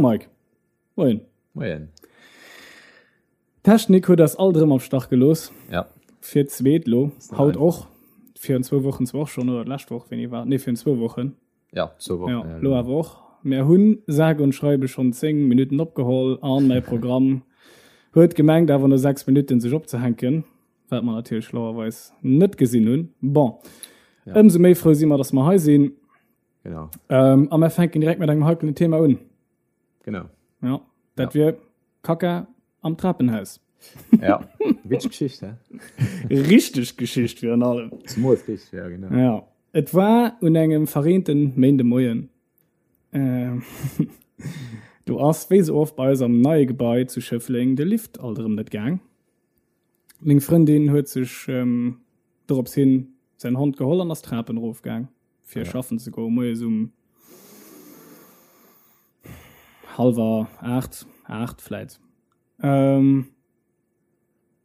Mike. Moien. Moien. D'Technik huet eis alt erëm am Stach gelooss. Ja. Fir d'zweet lo. Haut och. Virun zwou Wochen zwar och schonn, oder d'lescht Woch, wéini war? Nee, virun zwou Wochen. Ja, zwou Wochen. Ja, lo awer och. Mär hunn sage und schreibe schonn 10 Minutten opgeholl an mäi Programm huet gemengt awer no 6 Minutten sech opzehänken, wat mer natierlech schlauerweis net gesinn hunn. Bon, ja. Ëmsou méi frou si mer, dass mer hei sinn. Genau. Ähm, a mer fänken direkt mat engem heikelen Thema un. Genau. Ja, dat ja. wier Kaka am Trapenhaus. Ja, witzeg Geschicht, hä? Richteg Geschicht virun allem. Zemools richteg, ja, genau. Ja. Et war un engem verreenten Méindemoien. Äh, do ass, wéi sou oft bei eis am neie Gebai zu Schëffleng, de Lift alt erëm net gaang. Meng Frëndin huet sech ähm, dorops hin säin Hond geholl an ass d'Trapen erofgaang, fir ja. schaffen ze goen, moies um hallwer 8, 8 vläit. Ähm,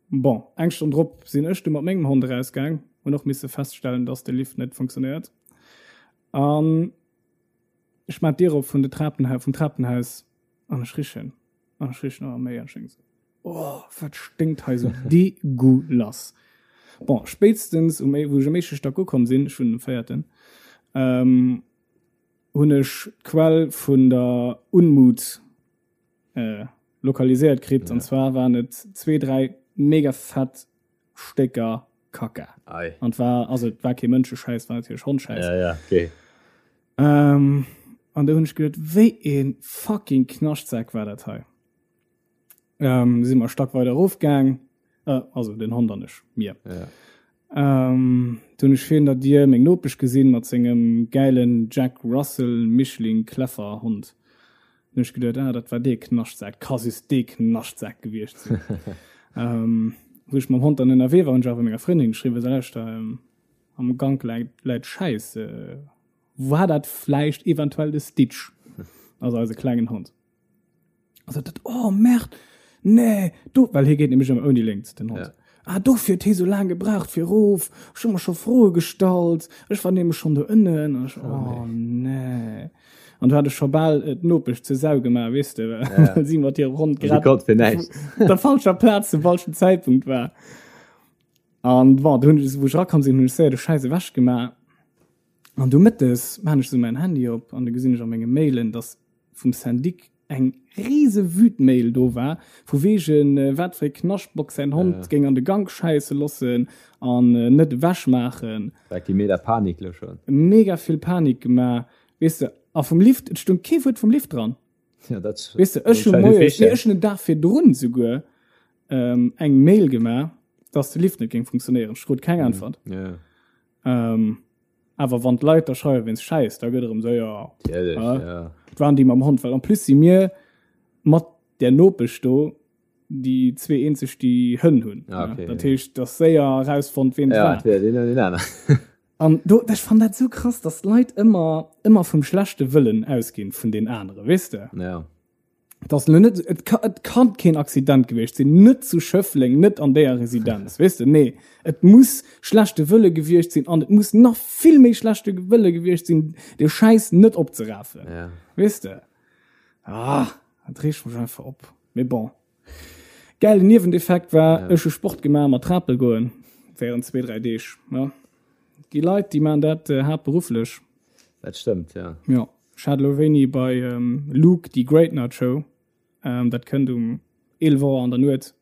bon, eng Stonn drop sinn ech du mat mengem Hond erausgaang, hunn och misse feststellen, dass de Lift net funktionéiert. An ech mat d'Dier op vun de Trapenha vum Trapenhaus an ech richen an ech richen ëmmer méi an ech denk sou, oh, wat sténkt hei sou degueulass. Bon, spéitstens um, wou ech um éischte Stack ukomm sinn, ech wunnen um véierten, ähm, hunn ech d'Quell vun der Unmut äh, lokaliséiert kritt. Ja. An zwar waren et zwee, dräi mega fett Stécker Kacka. Ei. An war also et war kee Mënscheschäiss, war natierlech Hondschäiss. Ja, ja, okay. Ähm, an do hunn ech geduet, wéi ee fucking Knaschtsak war dat hei. Ähm, si mer Stack weider erofgaang, äh, also den Hond an ech, mir. Ja. Ähm, du hunn ech virun der Dier meng Nopesch gesinn mat sengem gäilen Jack Russell Mischling Kläffer Hond. Hunn ech geduet, ah, dat war dee Knaschtsak, ka just dee Knaschtsak gewiescht sinn. ähm, wou ech mam Hond dann ënnerwee war, hunn ech awer menger Frëndin geschriwwen, so, lauschter, ähm, am Gank läit, läit Schäiss, äh, war dat vläicht eventuell de Stitch? Also eise klengen Hond. Also dat, oh Merd, nee, do, well hie geet nämlech ëmmer ouni Léngt, den Hond. Ja. Ah, dofir huet hie sou laang gebraucht fir erof. Ech hu mer scho Froe gestallt. Ech war nämlech schonn do ënnen. An ech, oh nee. An du hat ech scho bal äh, d'Nopesch zur Sau gemaach, weess de, well ja. si mat hirem Hond grad op der falscher Plaz zum falschen Zäitpunkt war. An bon, du hunn ech, wou ech erakomm sinn, hunn ech séier de Schäiss ewech gemaach. An du mëttes maan ech sou mäin Handy op an du gesinn ech a menge Mailen, dass vum Syndic eng riese Wütmail do war, vu wegen wat fir e Knaschtbock säin Hond géing an de Gank schäisse lossen an net ewech maachen. Dat gi mega Panik lo schon. Mega vill Panik gemaach, weess de. A vum Lift, et stung kee Wuert vum Lift dran. Ja, dat Weess de, ech hu moies, nee, ech hunn den Dag virdrun souguer eng Mail gemaach, dass de Lift net géing funktionéieren. Ech krut keng Äntwert. Ja. Awer wann d'Leit da schreiwe wéinst Schäiss, da gëtt erëm séier Natierlech, ja. Et waren déi mam Hond, well en plus si mir mat där Nopesch do déi zwee eenzeg, déi Hënn hunn. Ah, okay, dat heescht, et ass séier erausfonnt, ween et war. Ja, entweder deen oder deen aner. An do, ech fann dat esou krass, datt d'Leit ëmmer, ëmmer vum schlechte Wëllen ausginn vun den anere, weess de? Ja. Das lo net, et ka, et kann keen Accident gewiescht sinn, net zu Schëffleng, net an déier Residenz, weess de, nee. Et muss schlechte Wëlle gewiescht sinn an et muss nach vill méi schlechte Wëlle gewiescht sinn, de Schäiss net opzerafen, ja. weess de. Ah, dat reegt mech einfach op. Mee bon. Gäilen Nieweneffekt war, ja. ech hu Sport gemaach mat Trapel goen, während zwee, dräi Deeg, ja. Déi Leit, déi maan dat äh, haaptberufflech. Dat stëmmt, ja. Ja. Ech hat elo wéini bei Luke déi Great Nut Show, dat kënnt um 11 Auer an der Nuet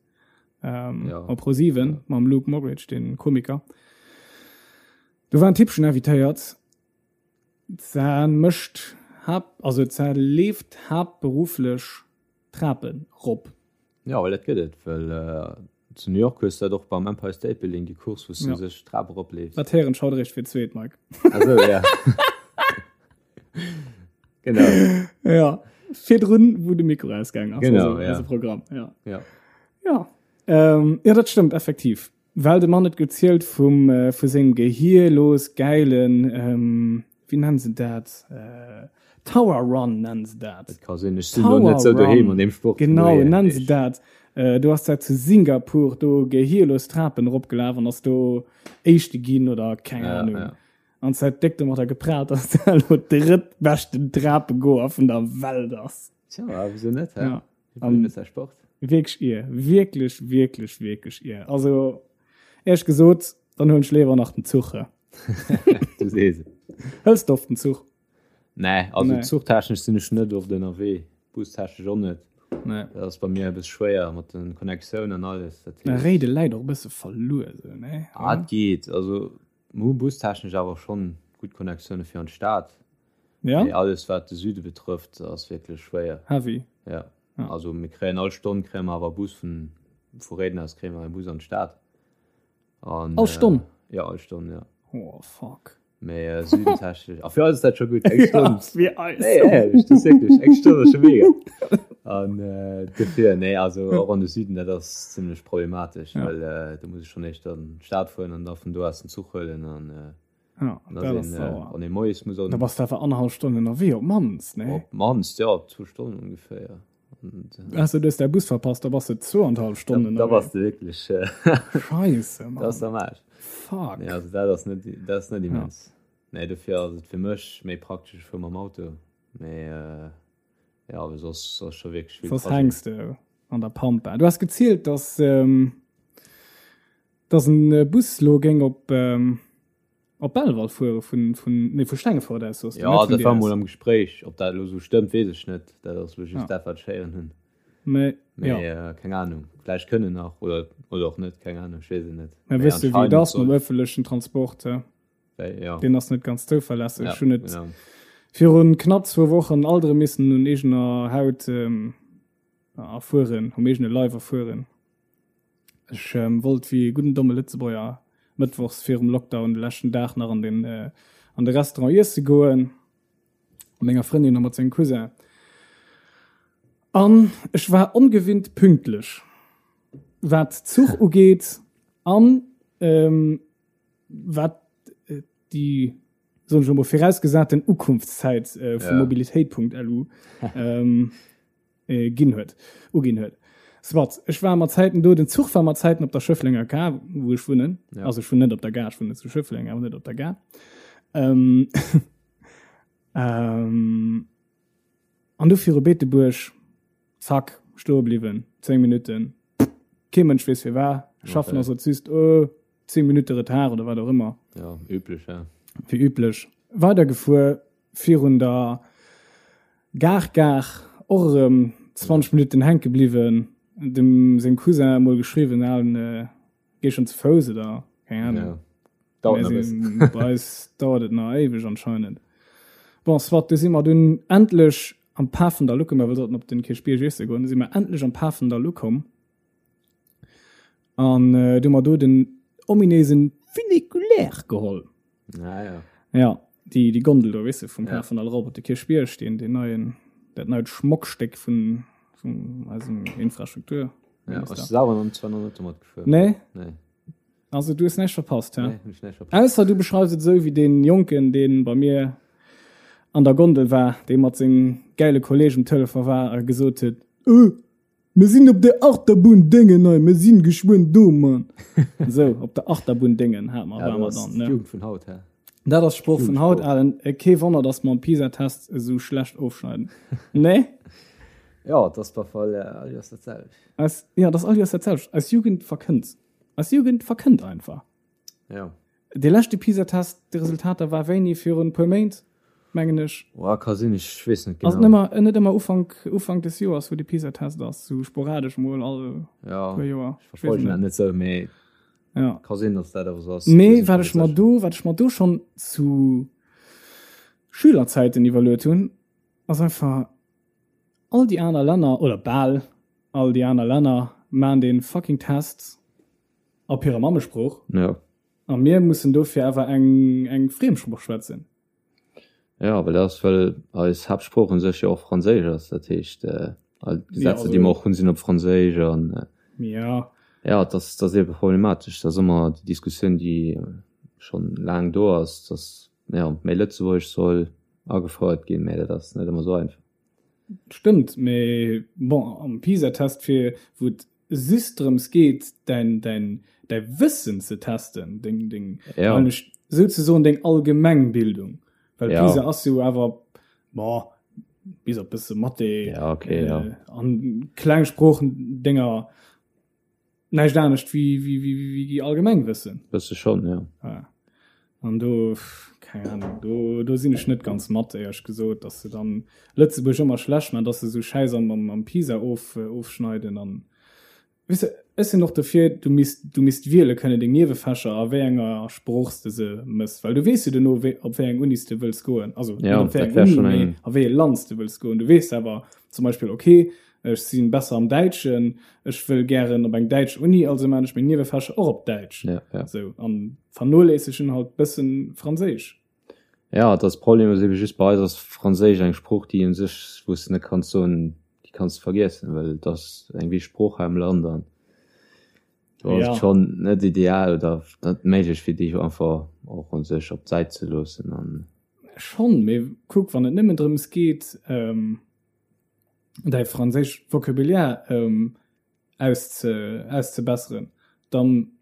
op Pro7 mam Luke Mockridge, den Komiker. Do war en Typchen invitéiert, za mécht haapt, also za leeft haaptberufflech Trapen rop. Jo, well dat gëtt et, well zu New York hues du dat och beim Empire State Building, déi Course, wou s du sech d'Trap eropleefs. Dat héieren ech haut eréischt fir d'zweet, Mike. Ah sou, ja. Genau. Ja, virdrun, wou de Mikro ausgaang ass. Genau, ja. Eise Programm, ja. Ja. Ja. Ähm, ja, dat stëmmt effektiv. Well de Mann huet gezielt vum, vu sengem gehierlos gäilen, ähm, wéi nennen se dat? Tower Run nennen se dat. Dat ka sinn, ech sinn elo net sou doheem an deem Sport. Genau, nennen se dat. Du ass dat zu Singapur do gehierlos Trapen eropgelaf an ass do Éischte ginn oder keng Ahnung. An se huet déck domatter geprahlt, dass se elo drëttbeschten Trapegoer vun der Welt ass. Tja, wieso net, hä? Ja. An Sport. Wierklech ier, wierklech, wierklech, wierklech ier. Also, éierlech gesot, dann huelen ech léiwer nach den Zuch. Du sees et. Hëls de oft den Zuch? Nee, also nee. zuchtechnesch sinn ech net oft ënnerwee, bustechnesch och net. Nee. Dat ass bei mir e bësse schwéier mat den Connectiounen an alles. Dat heescht. Réide läit och e bësse verluer sou, nee? Ah, et geet. Also mir hu bustechnesch awer schonn gutt Connectioune fir an d'Stad. Ja? Mee alles wat de Süde betrëfft ass wierklech schwéier. Heavy. Ja. ja. Also mir kréien all Stonn kréie mer awer Bus vun vu Réiden aus kréie mer e Bus an d'Stad. An, all Stonn? Äh, ja, all Stonn, ja. Oh, fuck. Mee äh, südentechnesch. A fir eis ist dat scho gutt. Eng Stonn. Ja, fir eis. Nee, ehrlich, das ist wirklich. Eng Stonn ass scho mega. An äh, dofir, nee, also och an de Süden, dat ass zimmlech problematesch, ja. well äh, do muss ech schon éischt an d'Stad fueren an da vun do aus den Zuch huelen an äh, Ja, dat ass sauer. Wann ee moies muss an. Da bass de awer annerhallef Stonn ënnerwee op d'mannst, nee? Op d'mannst, ja, zwou Stonnen ongeféier. Ausser du hues däi Bus verpasst, da bass de zwouanderhallef Stonnen ënnerwee. Da bass de wierklech. Scheisse, Mann. Dat ass am Aarsch. Fuck. Nee, also dat ass net, dat ass net immens. Ja. Nee, dofir ass et fir mech méi praktesch, ech fuer mam Auto. Mee ja, awer soss ass scho wierklech vill. Soss hänks de an der Pampa. Du has gezielt, dass. Dass en Bus lo géing op op Belval fuere vun vun nee vu Stengefort aus soss du, Jo, net vun dat war mol am Gespréich. Ob dat elo sou stëmmt, weess ech net. Dat ass elo just dat, wat ech héieren hunn. Mee Mee jo. keng Anung. Vläicht kënne nach oder oder och net, keng Anung, ech weess et net. Mä Mee weess de wéi et anscheinend ass mam soll. ëffentlechen Transport, he? Wéi, jo. Deen ass net ganz zouverlässeg. Ja, Ech hunn et genau. virun knapp zwou Wochen alt erëm missen un eegener Haut erfueren, um eegene Leif erfueren. Ech wollt wéi e gudden domme Lëtzebuerger mëttwochs virum Lockdown de leschten Dag nach an den an de Restaurant iesse goen, mat menger Frëndin a mat sengem Cousin. An ech war ongewinnt pünktlech, wat Zuch ugeet an wat déi, soen ech elo mol, virausgesaten Ukunftszäit vu mobilitéit.lu ginn huet, uginn huet. Soit, ech war mat Zäiten do, den Zuch war mat Zäiten op der Schëfflenger Gare, wou ech wunnen. Ja. Also ech wunnen net op der Gare, ech wunnen zu Schëffleng, awer net op der Gare. Ähm, ähm, an du viru Beetebuerg, zack, stoe bliwwen, 10 Minutten. Kee Mënsch weess firwat. Schaffen Okay. ass et just, oh, 10 Minutte Retard oder wat och ëmmer. Ja, üblech, ja. Wéi üblech. Weidergefuer virun der Gare Gare och erëm 20 Minutten hänke bliwwen. Dem sengem Cousin emol geschriwwen, alen, géi schonn ze Fouss oder keng Ahnung. Ja, dauert nach e bëssen. Bei eis dauert et nach éiweg anscheinend. Bon, soit, du si mer dunn endlech am Pafendall ukomm, well wir sollten op den Kierchbierg iesse goen, du si mer endlech am Pafendall ukomm. An äh, du mer do den ominéisen Funiculaire geholl. Ah, ja. Ja, déi, déi Gondel do, weess de, vum Ja. Pafendall erop op de Kierchbierg, deen, deen neien, dat neit Schmockstéck vun, vun eisem Infrastruktur. Ja, ech selwer noch zwar noch net domat gefuer. Nee? Nee. Also du hues näischt verpasst, hä? Nee, hun ech näischt verpasst. Ausser du beschreifs et esou wéi deen Jonken, deen bei mir an der Gondel war, dee mat sengem gäile Kolleg um Telefon war a gesot huet, Öh, Mir sinn op der Achterbunn Déngen hei, mir sinn geschwënn do, Mann. Esou, op der Achterbunn Déngen hat mer, Ja, war dat mer ass dann, ne? d'Jugend vun haut, hä? Dat ass d'Sprooch vun haut, Jugendsprooch. Alen. Kee Wonner, dass mer am PISA-Test esou schlecht ofschneiden. Nee? Ja, et ass bei Fall all Joers dat selwecht. Eis, ja, et ass all Joers dat selwecht. Eis Jugend verkënnt. Eis Jugend verkënnt einfach. Ja. Dee leschte PISA-Test, déi Resultater war wéini? Virun e puer Méint, mengen ech. Oa, ka sinn, ech weess net Ass genau. et nëmmer, net ëmmer Ufank, Ufank des Joers, wou de PISA-Test ass, sou sporadesch mol all Ja, puer Joer. ech verfollegen dat net sou, mee Ja. ka sinn, datt dat awer sou ass. Mee wat ech mer do, wat ech mer do schonn zu Schülerzäiten iwwerluet hunn, ass einfach, all déi aner Länner, oder bal all déi aner Länner, maachen dee fucking Test op hirer Mammesprooch. Ja. A mir mussen dofir awer eng, eng Friemsprooch schwätzen. Ja, well dat ass, well eis Haaptsprooch un sech jo och Franséisch ass. Dat heescht, all d'Gesetzer, déi mer och hunn, sinn op Franséisch. An ja. ja, dat ass, dat ass ebe problematesch. Dat ass ëmmer déi Diskussioun, déi schonn laang do ass, dass, ja, méi Lëtzebuergesch soll agefouert ginn, mä dat ass net ëmmer esou einfach. Stëmmt, mä bon, am PISA-Test, fir wou et just drëms geet, däin, däin, däi Wëssen ze testen, deng, deng, Ja. souzesoen deng Allgemengbildung, well Ja. PISA ass jo awer, bon, Bis op bësse Mathé ja, okay, ja. äh, an kleng Sproochendénger näischt anescht wéi, wéi, wéi, wéi, wéi Allgemengwëssen. Bësse schonn, ja. Ja. An do, keng Ahnung, do, do sinn ech net ganz mat, éierlech gesot, dass se dann Lëtzebuerg ëmmer schlecht man, dass se sou Schäiss am, am, am PISA of, ofschneiden an Weess de, ech sinn och dofir, du misst, du misst wiele kënnen deng Niewefächer a wéi enger Sprooch s de se mëss, well du weess jo dono, wéi, op wéi eng Uni s de wëlls goen, also net Ja, op wéi dat eng wär Uni, schonn mee eng. a wéi e Land s de wëlls goen. Du weess awer zum Beispill, okay, ech si besser am Däitschen, ech wëll gären op eng däitsch Uni, also maan ech meng Niewefächer och op Däitsch. Ja, ja. Sou, an vernoléissegen halt bëssen Franséisch. Ja, et ass Problem ass ebe just bei eis ass Franséisch eng Sprooch, déi un sech, wou s de net kanns soen, déi kanns de vergiessen, well et ass eng wichteg Sprooch hei am Land an do ass Ja. et schonn net ideal oder net méiglech fir déi einfach och un sech op d'Säit ze loossen an. Schonn, mee kuck, wann et nëmmen drëms geet, däi franséischt Vocabulaire ausze, auszebesseren, dann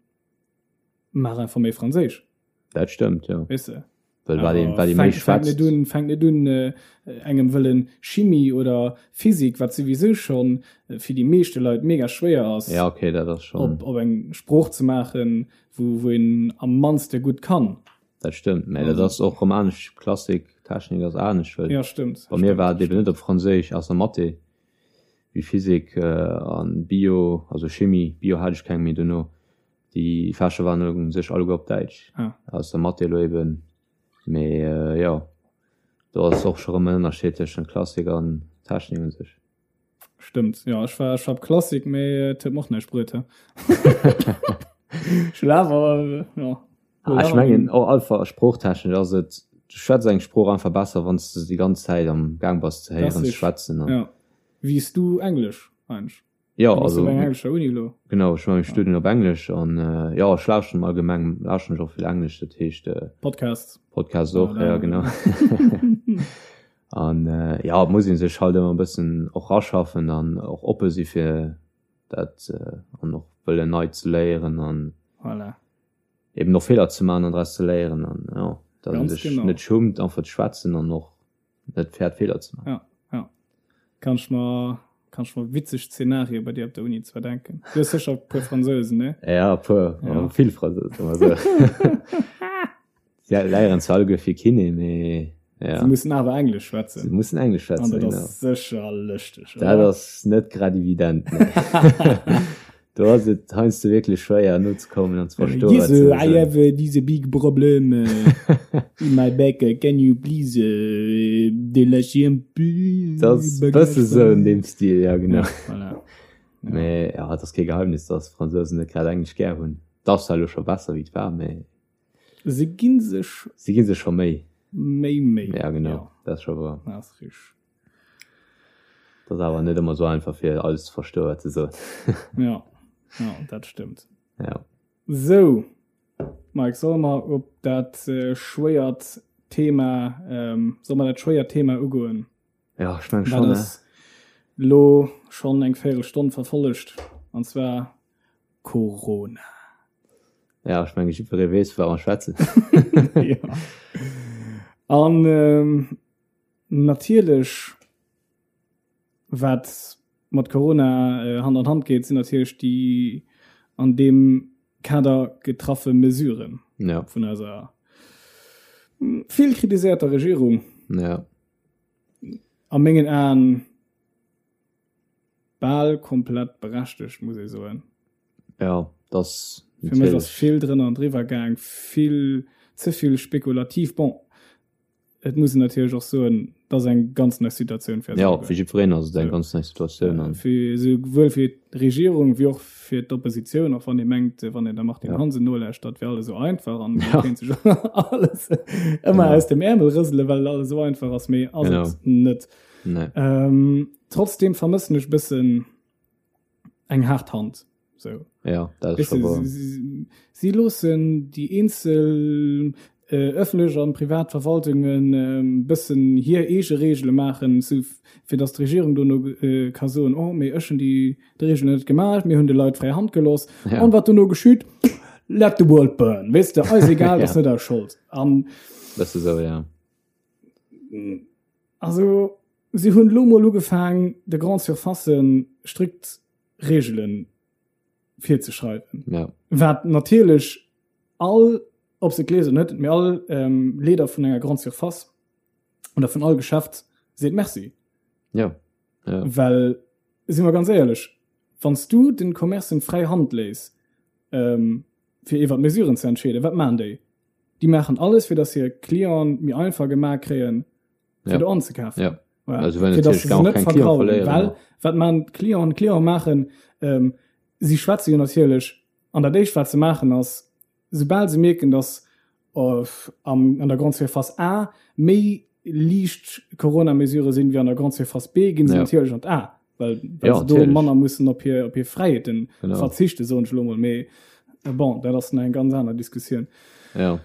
maach einfach méi Franséisch. Dat stëmmt, jo. Weess de? Well wat een, wat ee méi schwätzt. Fänkt net un, fänkt net un engem wëllen Chimie oder Physik, wat souwisou schonn fir déi meeschte Leit mega schwéier ass, Ja, okay, dat ass schonn. op, op eng Sprooch ze maachen, wou, wou een am mannste gutt kann. Dat stëmmt, mä dat ass och rëm anescht, Klassik, Technik ass anescht, well Ja, stëmmt. bei mir war et eben net op Franséisch, ausser Mathé, wéi Physik an Bio, also Chimie, Bio hat ech keng méi dono. Déi Fächer waren u sech alleguer op Däitsch, ah. ausser Mathé elo eben. Mee äh, jo, do ass och scho rëm en Ënnerscheed tëschent Klassik an Technik u sech. Stëmmt, jo, ech war, ech war op Klassik, mee et huet mer och näischt bruet, he. Ech hunn awer, jo. Ah, ech mengen och einfach sproochtechnesch ass et, du schwätz eng Sprooch einfach besser, wann s de se déi ganz Zäit am Gaang bass ze héieren, ze schwätzen. Ja. Wéi s du Englesch eigentlech? Jo, Du bass also op enger englescher Uni elo? Genau, ech maache meng Studien op Englesch an jo, ech lauschteren allgemeng lauschteren ech och vill Englesch, dat heescht Podcasts. Podcasts och, ja genau. An jo, et muss ee sech halt ëmmer e bëssen och raschaffen an och oppe si fir dat an och wëllen nei ze léieren an Voilà. eben och Feeler ze maachen an draus ze léieren an jo, datt ee Ganz sech genau. net schummt einfach ze schwätzen an och net fäert Feeler ze maachen. Ja, ja. Kann ech mer, kann ech mer witzeg Szenarie bei dir op der Uni zwar denken. Du hues sécher e puer Fransousen, ne? Ja, e puer, Ja. vill Fransousen, also. Sie léieren zwar alleguer fir Kiné, mee ja. Sie mussen awer Englesch schwätzen. Sie mussen Englesch schwätzen, An dat genau. ass sécher lëschteg, Dat oder? ass net grad evident, nee. Do ass et heiansdo wierklech schwéier nozekommen an ze verstoen, Yes, wat se I soen. have this big problem in my back, can you please délacher un peu Dat ass e bësse sou an deem Stil, ja genau. Ja, voilà. Ja. Mee ja, et ass kee Geheimnis, dass d'Fransousen net grad Englesch gär hunn. Et ass zwar elo scho besser wéi et war, mee. Se gi sech. Se gi sech scho Méi. Méi Méi. Ja, genau, dat ass scho wouer. Dat ass richteg. Dat ass awer net ëmmer sou einfach fir alles ze verstoen wat se soen. Ja, ja, dat stëmmt. Ja. Sou, Mike, solle mer op dat äh, schwéiert Thema, ähm, solle mer dat schwéiert Thema ugoen? Ja, ech meng Wat schon, ne? ass lo schonn eng Véierelstonn verfollegt, an zwar Corona. Ja, ech menge jiddweree weess, vu wat mer schwätzen. ja. An ähm, Natierlech, wat mat Corona Hand an Hand geet, sinn natierlech déi an deem Kader getraffe Mesuren vun eiser vill kritiséierter Regierung. A mengen Aen bal komplett berechtegt, muss ee soen. Ja, dass Fir mech ass vill drënner an driwwer gaang, vill ze vill spekulativ. Bon, Et muss een natierlech och soen, et ass eng ganz nei Situatioun fir eis Ja, alleguer. fir jiddwereen ass et eng ganz nei Situatioun an. Fir esouwuel fir d'Regierung wéi och fir d'Oppositioun, och wann ee mengt, wann een der Martine Ja. Hansen nolauschtert, wär alles esou einfach an Ja. kéint sech alles ëmmer Genau. aus dem Äermel rësele, well alles esou einfach ass, mee ass Genau. et net. Nee. Ähm, trotzdem vermëssen ech e bëssen eng haart Hand. So. Ja, dat Weißt du, sie, sie, sie loossen déi eenzel äh, öffentlech an privat Verwaltungen äh, bëssen hir eege Regele maachen, so, fir dass d'Regierung dono äh, ka soen, oh, mee ech hunn déi d'Regelen net gemaach, mir hunn de Leit fräi Hand gelooss. Ja. An wat dono geschitt? Let the world burn. Weißt du, eis egal, Ja. das net eis Schold. An Bësse sou, ja. also. Si hunn elo mol ugefaang, de Grande Surfacen strikt Reegele virzeschreiwen. Ja. Wat natierlech all, ob se et gleewen oder net, mee all ähm, Leeder vun enger Grande Surface oder vun all Geschäft seet Merci. Ja. Ja. Well, si mer ganz éierlech, wann s du den Commercen fräi Hand léiss, ähm, fir iwwer d'Mesuren ze entscheeden, wat maachen déi? Déi maachen alles, fir datt hir Clienten méi einfach gemaach kréien, fir Ja. do anzekafen. Ja. Voilà. Also wenn Fir datt se natürlich se net keng Client vergraulen. verléieren. Well, wat maachen d'Clienten? D'Clienten maachen, ähm, si schwätze jo natierlech, an dat éischt wat se maachen ass, soubal se mierken, datt am, an der Grande Surface A méi liicht Corona-Mesurë sinn wéi an der Grande Surface B, ginn se Ja. natierlech an d'A, well, well Ja, se do natierlech. manner mussen op hir, op hir Fräiheeten Genau. verzichten, soen ech elo mol. Mee äh, bon, dat ass nach eng ganz aner Diskussioun. Ja.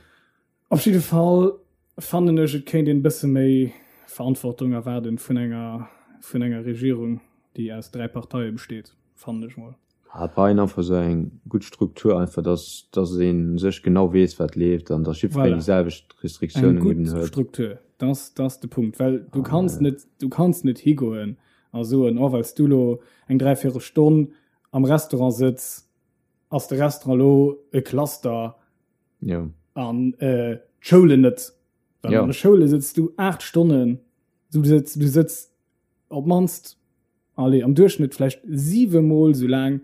Op jidde Fall fannen ech, et kéint een e bësse méi Verantwortung erwaarden vun enger, vun enger Regierung, déi aus 3 Parteie besteet, fannen ech mol. Ah, et brauch een einfach esou eng gutt Struktur, einfach dass, dass ee sech genau weess, wat leeft an dass jiddwereen Voilà. déi selwecht Eng Restriktiounen gutt eben huet. Struktur, dass, dass de Punkt, well du An, kanns äh, net, du kanns net higoen a soen, oh, well s du lo eng dräivéierel Stonn am Restaurant sëtz, ass de Restaurant lo e Cluster Ja. an äh, d'Schoulen net. Well Ja. an de Schoule sëtz du 8 Stonnen, du sëtz, du sëtz op d'mannst, allez, am Duerchschnëtt vläicht 7 Mol sou laang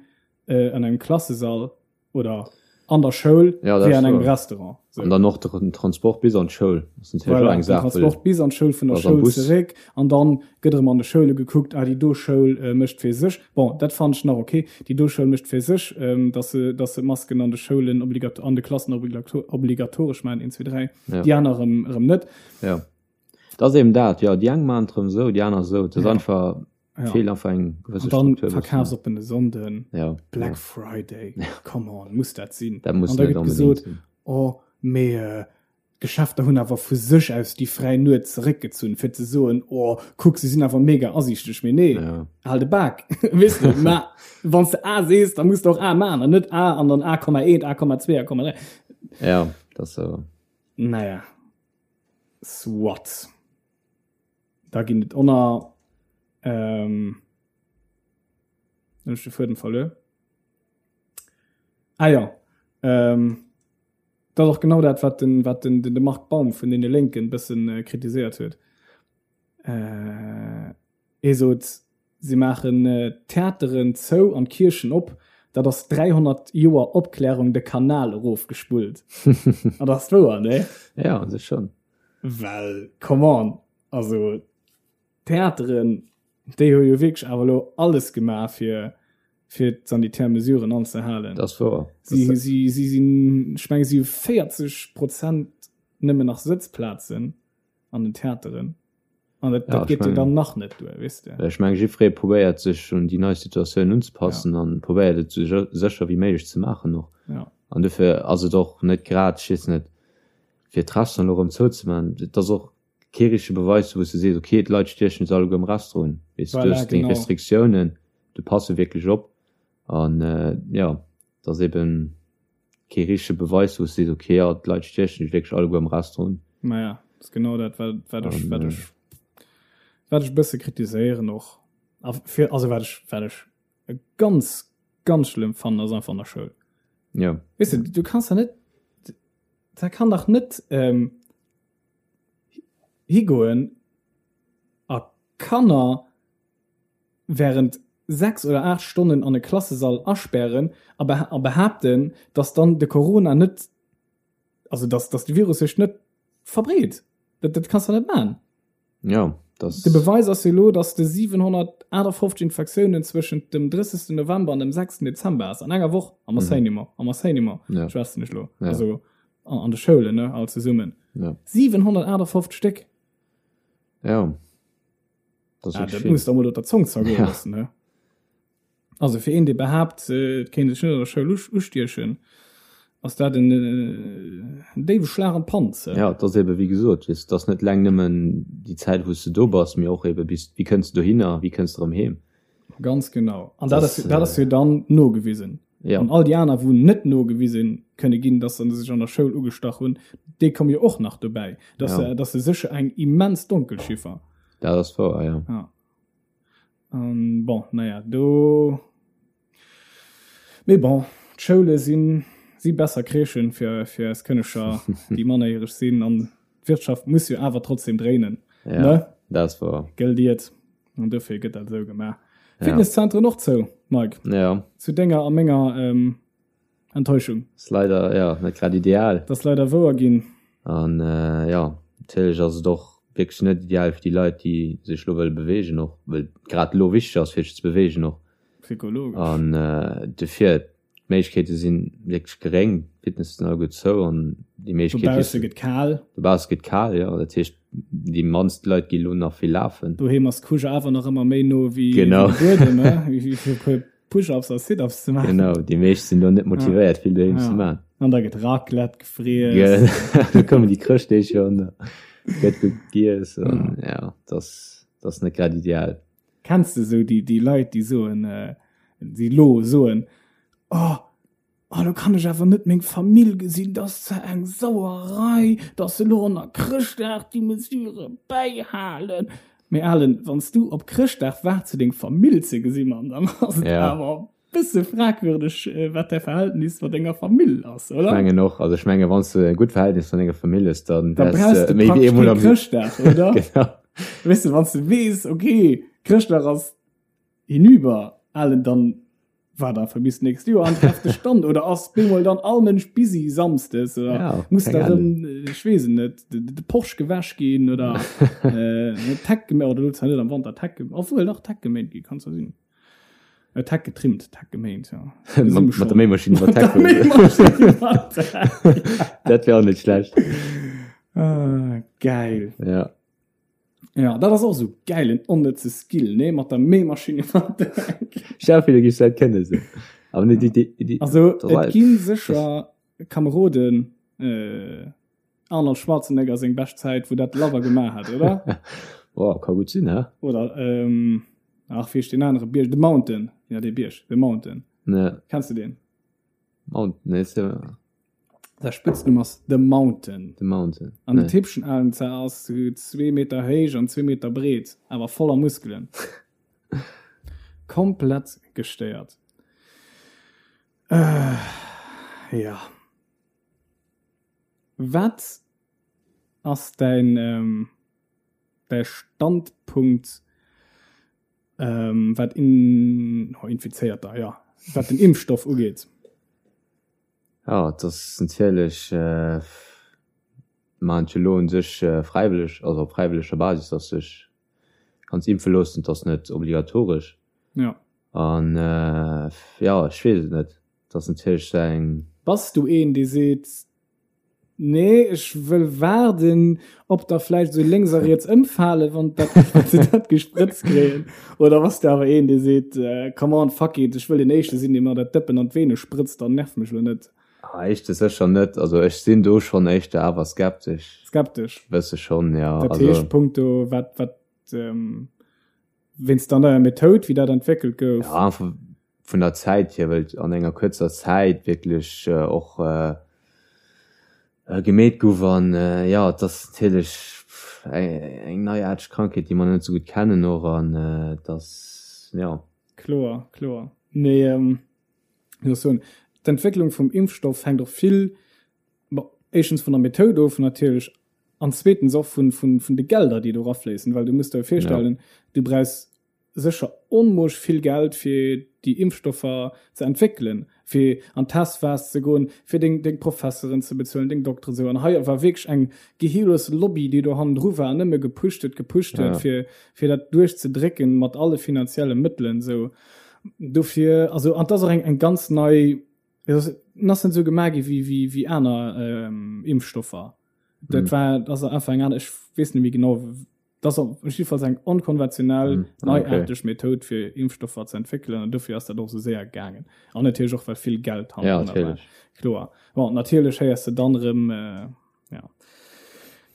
äh, an engem Klassesall oder an der Schoul Ja, dat wéi ass an engem wouer. Restaurant. So. An dann och den Transport bis an d'Schoul ass natierlech och Voilà, eng den Saach, well Transport bis an d'Schoul, vun der ass am Schoul Bus. zeréck an dann gëtt erëm an de Schoule gekuckt, ah déi do Schoul äh, mécht fir sech, bon dat fannen ech nach ok, déi do Schoul mécht fir sech, ähm, dass se, dass se d'Masken an de Schoulen obligat an de Klassen obligato obligatoresch maachen, 1, 2, 3, Ja. déi aner erëm, erëm net. Ja. Dat ass eben dat, jo, déi eng maachen et erëm esou, déi aner esou. Et ass Ja. einfach, Ja. feelt einfach eng gewësse An dann Struktur e bëssen. verkafsoppene Sonnden, Ja, Black ja. Friday, come on, muss dat sinn? Dat muss An da net gëtt onbedéngt gesot, sinn. oh, mee äh, d'Geschäfter hunn awer vu sech aus déi fräi Nuet zeréckgezunn, fir ze soen, oh, kuck, se sinn awer mega asiichteg. Mee nee, Ja. hal de Bak. Weess de, ma wann s de A sees, da muss de och A maachen an net A an dann A,1, A,2, A,3. Ja, dat ass awer. Naja, soit. Da ginn et onner. Ähm, hunn ech de Fuedem verluer. Ah ja, ähm, dat ass och genau dat, wat den, wat den, den, de Marc Baum vun deene Lénken bëssen äh, kritiséiert huet. Äh, hie sot, si maachen äh, d'Theateren zou an d'Kierchen op. Dat ass 300 Joer Opklärung de Kanal erofgespullt. An dat ass wouer, ne? Ja, an sech schon. Well, come on, also d'Theateren, déi hu jo wierklech awer elo alles gemaach, fir, fir d'sanitär Mesuren anzehalen. Dat ass wouer. Si, si, si sinn, ech menge si hu 40 Prozent nëmmen nach Sëtzplazen an den Theateren. An dat, dat Ja, ech geet jo mengen, dann nach net duer, weess de. ech menge jiddweree probéiert sech un déi nei Situatioun unzepassen Ja. an probéiert et esou sécher wéi méiglech ze maachen och. Ja. An dofir ass et och net grad, ech weess net, fir d'Restaurant elo erëm zouzemaachen, et ass och kee richtege Beweis, wou s de sees, okay, d'Leit stiechen sech alleguer am Restaurant un. Weess de, du Voilà, hues deng genau. Restriktiounen, du passe wierklech op. An jo, et ass eben kee richtege Beweis, wou s de sees, okay, jo, d'Leit stiechen sech wierklech alleguer am Restaurant un. Maja, ass genau dat, wat, wat ech, An wat ech, wat ech e bësse kritiséieren och. A fir, also wat ech, wat ech ganz, ganz schlëmm fannen, ass einfach an der Schoul. Jo. Weess de, du kanns da net, da kann dach net ähm, higoen a Kanner während 6 oder 8 Stonnen an e Klassesall aspären a a behaapten, dass dann de Corona net, also dass, dass de Virus sech net verbreet. Dat, dat kanns de net maachen. Ja, das. De Beweis ass jo elo, dass de 758 Infektiounen zwëschent dem 30. November an dem 6. Dezember ass, an enger Woch am mhm. Enseignement, am Enseignement, ja. schwätzen ech lo. Ja. Also an, an de Schoulen, ne, all zesummen. Ja. 758 Stéck. Ja. Das, ah, dat muss da mol der Zong zergoen ja. lassen, ne? Also fir een dee behaapt et kéint sech net an der Schoul ustiechen, ass dat en déiwe Schlag an d'Panz. Jo, et ass ebe wéi gesot, weess, et ass net eleng nëmmen déi Zäit wou s de do bass, mee och ebe bis, wéi kënns de dohinner, wéi kënns de erëm heem. Ganz genau. An dat ass, dat ass jo dann nogewisen. Jo. An all déi aner wou net nogewise kënne ginn, datt se sech an der Schoul ugestach hunn, déi komme jo och nach dobäi. Dat ass, dat ass sécher eng immens Donkelchiffer. Dat ass wouer, ja. Ja. An bon, naja, do. Mee bon, d'Schoule sinn si besser Crèchen fir fir eis Kënneger, déi mannerjäreg sinn an d'Wirtschaft muss jo awer trotzdem dréinen. Ja, ne? Dat ass wouer. Gëllt Iert. An dofir gëtt dat esou gemaach. Ja. Fitnesszentren och zou, Mike. Ja. Zu denger a menger ähm, Enttäuschung. Ass leider, ja, net grad ideal. Dat ass leider wouer ginn. An jo, natierlech ass et och wierklech net ideal fir déi Leit, déi sech elo wëlle beweegen och, well et grad elo wichteg ass, fir sech ze beweegen och. Psychologesch. An dofir, d'Méiglechkeete si wierklech geréng, d'Fitnesse sinn alleguer zou an déi Méiglechkeet. Dobausse gëtt kal. Dobausse gëtt kal, jo. Dat heescht, déi mannst Leit gi elo nach vill lafen. Doheem ass d'Couche awer nach ëmmer méi no wéi de Buedem, ne? Wéi fir e puer Push-ups a Sit-ups ze maachen. Genau, déi meescht sinn do net motivéiert, vill doheem ze maachen. An da gëtt Raclette gefriess. Da kommen déi Chrëschtdeeg schonn, da gëtt gutt giess an ja, dat ass, dat ass net grad ideal. Kenns de esou déi, déi Leit, déi soen, déi elo soen, Oh, oh, lo kann ech awer net meng Famill gesinn, dat ass zwar eng Sauerei, datt se elo an der Chrëschtdag déi Mesure bäihalen. Mee Alan, wann s du op Chrëschtdag waarts fir deng Famill ze gesinn, Mann, dann ass et Ja. awer e bësse fragwürdeg, wat däi Verhältnis mat denger Famill ass, Ech oder? mengen och, also ech menge wann s du e gutt Verhältnis mat denger Famill hues, dann Da wäers brauchs de du méi wéi praktesch eemol kee am Chrëschtdag, oder? Genau. Weess de, wann s du weess, okay, Chrëschtdag ass hinüber, Alan, dann War da fir bis nächst Joer an trefft de Stand oder ass bemol dann all Mënsch busy samsdes oder Ja, muss keng da Ahnung. rëm, ech weess et net, de, de Porsche gewäsch ginn oder äh, d'Heck geméint, oder lo zwar net am Wanter d'Heck, ge- obwuel dach d'Heck geméint gi kann zwar sinn. Äh, d'Heck getrimmt, d'Heck geméint, ja. Mat, mat der Méimaschinn iwwer Mat der d'Heck fueren. Méimaschinn iwwer d'Heck. Dat wär och net schlecht. Ah, geil. Ja. Ja, dat ass och sou geil, en onnëtze Skill, nee, mat der Méimaschinn iwwer d'Heck. Stell dir vir, du giffs dat kënnen sou. Awer net déi, déi, déi, Also, dat et war- gi sécher Kameroden, äh, Arnold Schwarzenegger seng bescht Zäit, wou dat labber gemaach hat, oder? Boah, ka gutt sinn, hä? Oder, ähm, ach, wéi heescht deen anere Bierg? The Mountain. Ja, dee Bierg, The Mountain. Ne, Kenns du deen? Mountain, nee, ist ja Säi Spëtznumm ass The Mountain. The Mountain. An den Nee. Typchen alen zwar ass zwee Meter héich an zwee Meter breet, awer voller Muskelen. Komplett gestéiert. Äh, ja. Wat ass däin, ähm, däi Standpunkt, ähm, wat in, oh, Infizéierter, ja, wat den Impfstoff ugeet? Jo, et ass natierlech, maachen et jo elo u sech fräiwëlleg, also op fräiwëlleger Basis, dass sech kanns impfe loossen. Et ass net obligatoresch. Jo. An jo, ech weess et net. Et ass natierlech esou eng. Bass du een, dee seet, Nee, ech wëll waarden, ob der vläicht esou lénks a riets ëmfalen, wann dat, wann se dat gesprëtzt kréien. Oder bass de awer een, dee seet, Come on, fuck it, ech wëll deen Éischte sinn, dee mer dat Dëppen an d'Vene sprëtzt, dann nerv mech elo net. Ah, éischte sécher net. Also ech sinn do schonn éischter awer skeptesch. Skeptesch? Bësse schonn, jo. Dat heescht, punkto wat, wat, wéinst der neier Methoud, wéi dat entwéckelt gouf? Ja, einfach vun der Zäit hier, well et an enger kuerzer Zäit wierklech och gemeet gouf an jo, et ass natierlech eng neiaarteg Krankheet, déi mer net esou gutt kennen och an et ass, jo. Kloer, kloer. Mee wéi soll ech soen, d'Entwécklung vum Impfstoff hänkt och vill, bon, éischtens vun der Methoud of natierlech an zweetens och vun, vun, vun de Gelder, déi do erafléissen, well du muss der jo virstellen, du brauchs sécher onmoosch vill Geld fir déi Impfstoffer ze entwéckelen, fir an d'Testphas ze goen, fir deng deng Professeren ze bezuelen, deng Dokteren esou. An hei war wierklech eng gehirlos Lobby, déi do hannendru war an nëmme gepusht huet, gepusht huet, fir fir dat duerchzedrécken mat alle finanzielle Mëttelen esou. Dofir, also an 't ass och eng eng ganz nei, et ass en ass net esou gemaach gi wéi wéi wéi aner Impfstoffer. Dat war, dat ass einfach eng aner, ech weess net méi genau, Dat ass op jiddefalls eng onkonventionell, mm, ah, neiaarteg okay. Method fir Impfstoffer ze entwéckelen an dofir ass dat och sou séier gaangen. An natierlech och well vill Geld ja, war. Kloer. Bon, natierlech héiers de dann erëm äh, ja.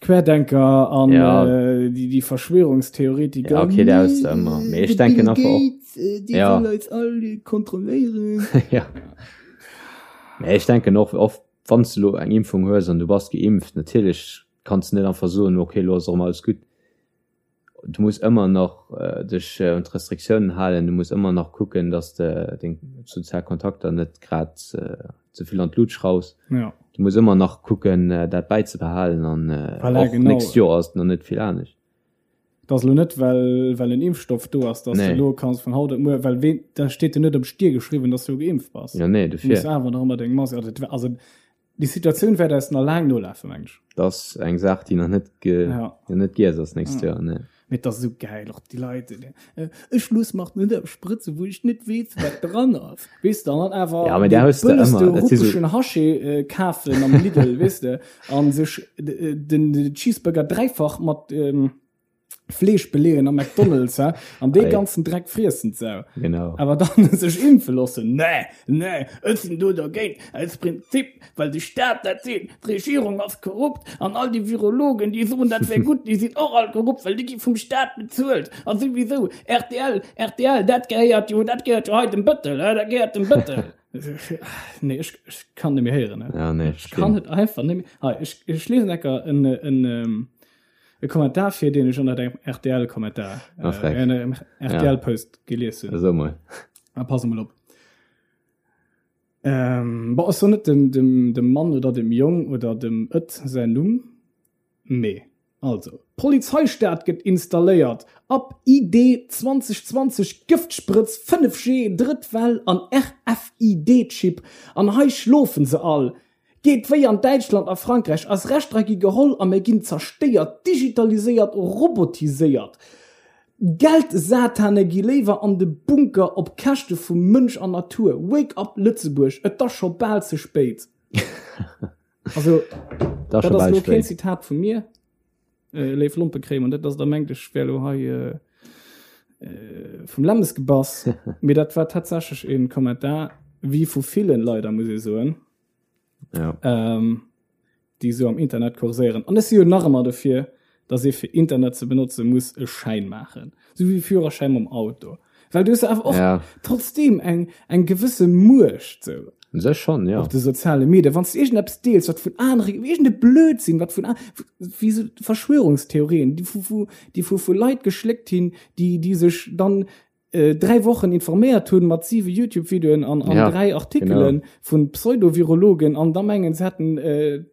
Querdenker an ja. äh, déi, déi Verschwörungstheoretiker. Ja, okay, der ist immer. Mee ich denke einfach och. Äh, déi ja. wëllen eis all kontrolléieren. ja. Mee ich denken och oft, wann du lo eng Impfung hues an du bass geimpft, natierlech Kanns net einfach soen, ok, elo ass erëm alles gutt. Du muss ëmmer nach dech un d'Restriktiounen halen, du muss ëmmer nach kucken, dass de deng sozial Kontakter net grad ze vill an d'Lut schraus. Ja. Du muss ëmmer nach kucken, dat bäizebehalen an voilà, och genau. nächst Joer ass et nach net vill anescht. Et ass elo net, well, well en Impfstoff do ass, dass nee. du elo kanns vun haut op muer, well ween, da steet jo net op Stier geschriwwen, dass du geimpft bass. Ja, nee, dofir. Du muss awer nach ëmmer deng Mask, also, also déi Situatioun wäert eis nach laang nolafen, meng ech. Dat ass eng Saach, déi nach net ge, ja. nach net giess ass nächst ja. Joer, nee. Mee et ass esou gäil, och déi Leit, déi, ech loosse mer net eppes sprëtzen, wou ech net weess, wat dran ass. Weess de, an dann awer ja, där hues de bëlleste ëmmer. Dat si so ruppeschen Haché äh, kafen am Lidl, weess de, an sech den, den Cheeseburger dräifach mat ähm, Fleesch beleeën am McDonald's, hä? An dee Ei. ganzen Dreck friessen d'Sau. Genau. Awer dann sech impfe loossen, nee, nee, ech sinn do dergéint, aus Prinzip, well de Staat dat seet, d'Regierung ass korrupt an all déi Virologen, déi soen, dat wär gutt, déi sinn och all korrupt, well déi gi vum Staat bezuelt. A souwisou, rtl, rtl, dat gehéiert jo, dat gehéiert jo hei dem Bëttel, hä, dat gehéiert dem Bëttel. Nee, ech, ech kann net méi héieren, hä. Ja, nee, Ech kann et einfach net méi. Hei, ech, ech liesen ecker en, en, E Kommentar fir deen ech ënnert engem RTL-Kommentar, Ah, frech. äh, engem RTL-Post gelies hunn. Esou mol. Ah, pass emol op. Ähm, bon, ech soen net dem, dem, dem Mann oder dem Jong oder dem Ët säin Numm, mee also, Polizeistaat gëtt installéiert, ab ID 2020, Gëftsprëtz, 5G, drëtt Well an RFID-Chip, an hei schlofen se all. Geet wéi an Däitschland a Frankräich, eis Rechter gi geholl a mir ginn zerstéiert, digitaliséiert, robotiséiert. Geldsatane gi léiwer an de Bunker op Käschte vu Mënsch an Natur. Wake up Lëtzebuerg, et ass scho bal ze spéit. Also, dat ass elo keen Zitat vu mir, léif Lompekréimer, net dass der mengt, ech wär elo hei vum Lämmes gebass, mee dat war tatsächlech e Kommentar, wéi vu villen leider, muss ee soen. Ja. Ähm, déi esou am Internet kurséieren. An ech si jo nach ëmmer dofir, dass ee fir Internet ze benotze muss e Schäin maachen. Sou wéi Führerschäin mam Auto. Well du hues awer och ja. trotzdem eng, eng gewësse Muecht sou. Un sech schon, ja. Op de soziale Medien. Wann s du iergendeppes deels, wat vun anere, iergende Blödsinn, wat vun, wéi sou Verschwörungstheorien, déi vu, vu, déi vu, vu Leit geschléckt hinn, déi, déi sech dann 3 Wochen informéiert hunn mat 7 YouTube-Videoen an, an ja, 3 Artikelen genau. vun Pseudovirologen an da mengen se hätten äh,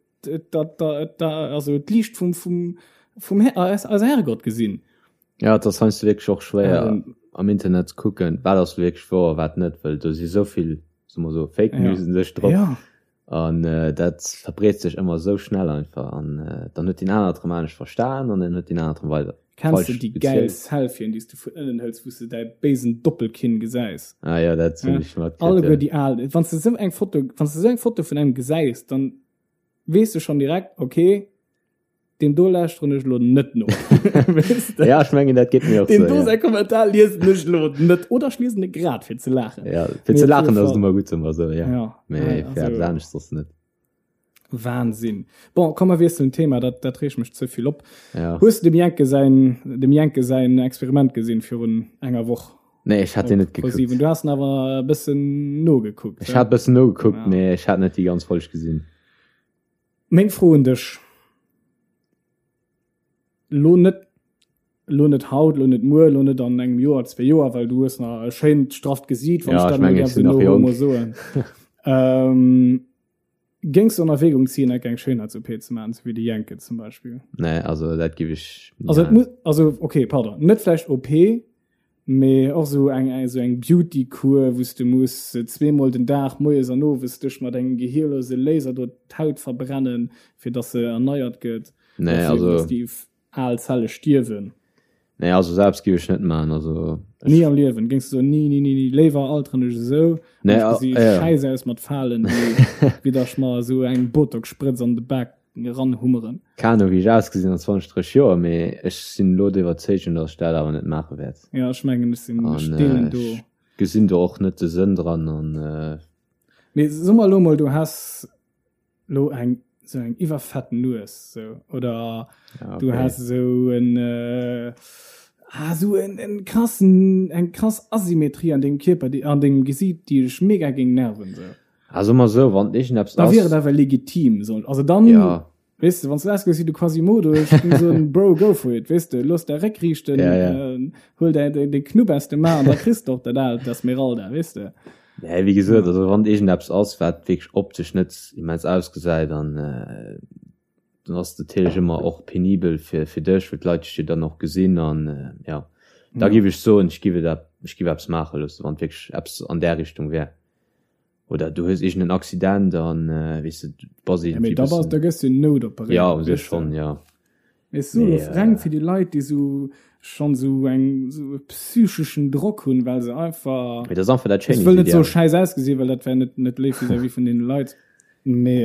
da, da, da, also d'Liicht vum, vum, vum Her äh, eise Herrgott gesinn. Ja, dat ass heiansdo wierklech och schwéier ähm, am Internet ze kucken, wat ass wierklech wouer, wat net, well do si souvill, soe mer so, Fake ja. News un sech drop. Ja. An dat verbreet sech ëmmer esou schnell einfach an dann huet deen anert erëm anescht verstan an dann huet deen anert erëm weider Kenns de falsch déi gäil gezielt. Selfien, déi s de vun ënnen hëls, wou s de däi béisen Doppelkinn gesäis? Ah jo, dat hunn Ja, ech matkritt, alleguer jo. déi al, wann s de esou eng Foto, wann s de esou eng Foto vun engem gesäis, dann weess de schonn direkt, okay, Deem do lauschteren ech elo net no. Weess de? Ja, ech mengen, dat geet mir och Deem sou, do ja. säi Kommentar liesen ech elo net. Oder ech liesen e grad fir ze laachen. Ja, fir Mee ze op laachen jidde ass et Fall. ëmmer gutt, soe mer sou, ja. Ja, Mee nee, fir eppes also anescht soss net. Wahnsinn. Bon, komm mer wiesselen d'Thema, dat, dat reegt mech ze vill op. Ja. Hues de dem Jenke säin, dem Jenke säin Experiment gesinn virun enger Woch? Nee, ech hat deen Op net gekuckt. ProSieben. Du has en awer e bëssen nogekuckt, Ech hä? hat e bëssen nogekuckt, Ja. mee ech hat net déi ganz Folg gesinn. Meng Fro un dech, lo net, lo net haut, lo net muer, lo net an engem Joer, zwee Joer, well du hues nach e schéint strafft Gesiit, wann Ja, ech ech dat mol mengen, ech däerf sinn esou nach no jonk. homo soen. Ähm, géings du an Erwägung ziehen, enk eng Schéinheits-OP ze maachen, esou wéi de Jenke zum Beispill? Nee, also dat giff ech ni Also et maachen. muss, also okay, pardon, net vläicht OP, Mee och sou eng eng sou eng Beauty-Kur, wou s de muss zweemol den Dag, moies an owes, dech mat engem gehierlose Laser do d'Haut verbrennen, fir dass se erneiert gëtt, Nee, oder fir also. dass déi al Zelle stierwen. Nee, also selbst géif ech net maachen, also ech. Ni am Liewen géings de soen, ni, ni, ni, ni, léiwer alteren ech esou an Nee, ech gesi ja. schäiss aus mat Falen, wéi wéi datt ech mer esou eng Botox-Sprëtz an de Bak eranhummeren. Keen Ahnung wéi ech ausgesinn an 20, 30 Joer, mee ech sinn elo der Iwwerzeegung, dass ech dat awer net maache wäert. Jo, ech mengen ech sinn, ech An deelen do. ech gesinn do och net de Sënn dran an. Mee so mer elo mol, du häss elo eng sou eng iwwerfett Nues sou oder Ja, du okay. häss esou en ah sou en en krassen eng krass Asymmetrie an dengem Kierper déi an dengem Gesiit déi dech mega géing nerven sou. Ah, soe mer esou, wann iergendeppes Da wier et ass. awer legitim, soen also dann Ja. Weess de, wann s du ausgesäis wéi de Quasimodo, ech géing soen, Bro, go for it, weess de, looss däi Réck riichten, Ja, ja. äh, huel däi, däi, däi Knupp aus dem A an da kriss de och dat aalt Esmeralda, weess de. Nee, wéi gesot, also wann iergendeppes ass, wat wierklech optesch net immens ausgesäit, dann, äh, dann ass et natierlech ëmmer och penibel fir, fir dech, well d'Leit dech jo dann och gesinn an, äh, ja. Da Ja. giff ech soen, ech giff et, ech giff eppes maache loossen, wann et wierklech eppes an där Richtung wär. Oder du hues iergend en Accident an weess de, du bass Ja, mee iergendwéi da bass, bëssen. da gëss du noutoperéiert, Ja, u sech weess de. schonn, ja. Mee ech soe Mee, lo reng fir déi Leit, déi sou schonn sou eng, sou e psycheschen Drock hunn, well se einfach, Mee dat ass einfach dat ech wëll net soe Schéinheesideal. schäiss ausgesinn, well dat wär net, net léif vis-à-vis vun deene Leit, mee,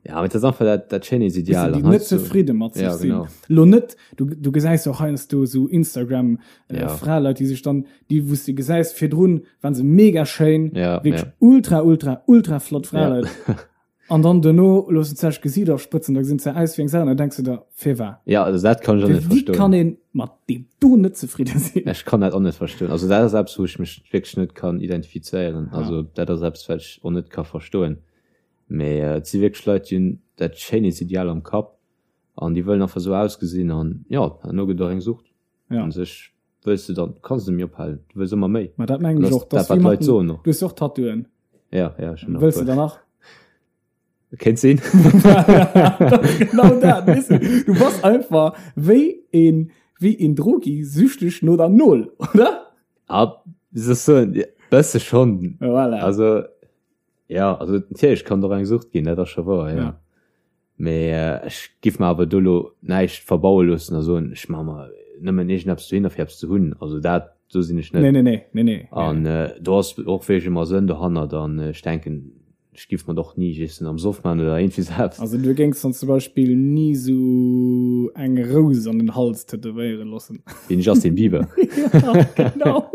Ja, mee dat ass einfach dat, dat weess de, Schéinheesideal. déi An net heiansdo, zefridde mat sech ja, sinn. genau. Lo net, du, du gesäis och heiansdo sou Instagram, Ja. Fraleit, déi sech dann, déi wou s de gesäis virdrun waren se mega schéin, Ja, wierklech ja. ultra ultra ultra flott Fraleit. Ja. An dann duerno loossen se sech Gesiit afsprëtzen, da gesinn se aus wéi eng Sau an da denks du der, firwat? Ja, also dat kann ech och net Wéi kann verstoen. een mat deem do net zefridde sinn? Ech kann dat och net verstoen. Also dat ass eppes, wou ech mech wierklech net kann identifizéieren. Ja. Also dat ass eppes, wat ech och net ka verstoen. Mee et si wierklech Leit, déi hunn dat Schéinheetsideal am Kapp an déi wëllen einfach esou ausgesinn an jo, herno gëtt och eng Sucht. Ja. An sech wëlls du dann, kanns du net méi ophalen, du wëlls ëmmer méi. Ma dat mengen ech och, dat dass wat wéi mat d'Leit soen och. Du hues jo och Tattooen. Ja, ja, ech hunn och Wëlls du puer. der nach? Kéint sinn. Dat ass genau dat, weess du. Du bass einfach wéi een, wéi een Drogi süchteg no der Nol, oder? Ah, wéi soll ech soen, bësse schonn. Voilà. Also, ja, also natierlech kann et och eng Sucht ginn, dat ass scho wouer, ja. Ja. Mee ech giff mer awer do lo näischt verbaue loossen a soen, ech maache mer nëmmen iergendeppes dohinner fir eppes ze hunn. Also dat, do sinn ech net. Nee, nee, nee, nee, nee. An do ass och wierklech ëmmer Sënn dohannert an ech denken, ech giff mer et och ni just am Soff maachen oder iergendwéi sou eppes. Also du géings dann zum Beispill ni sou eng Rous an den Hals tätowéiere loossen? Wéi den Justin Bieber. Ja, genau.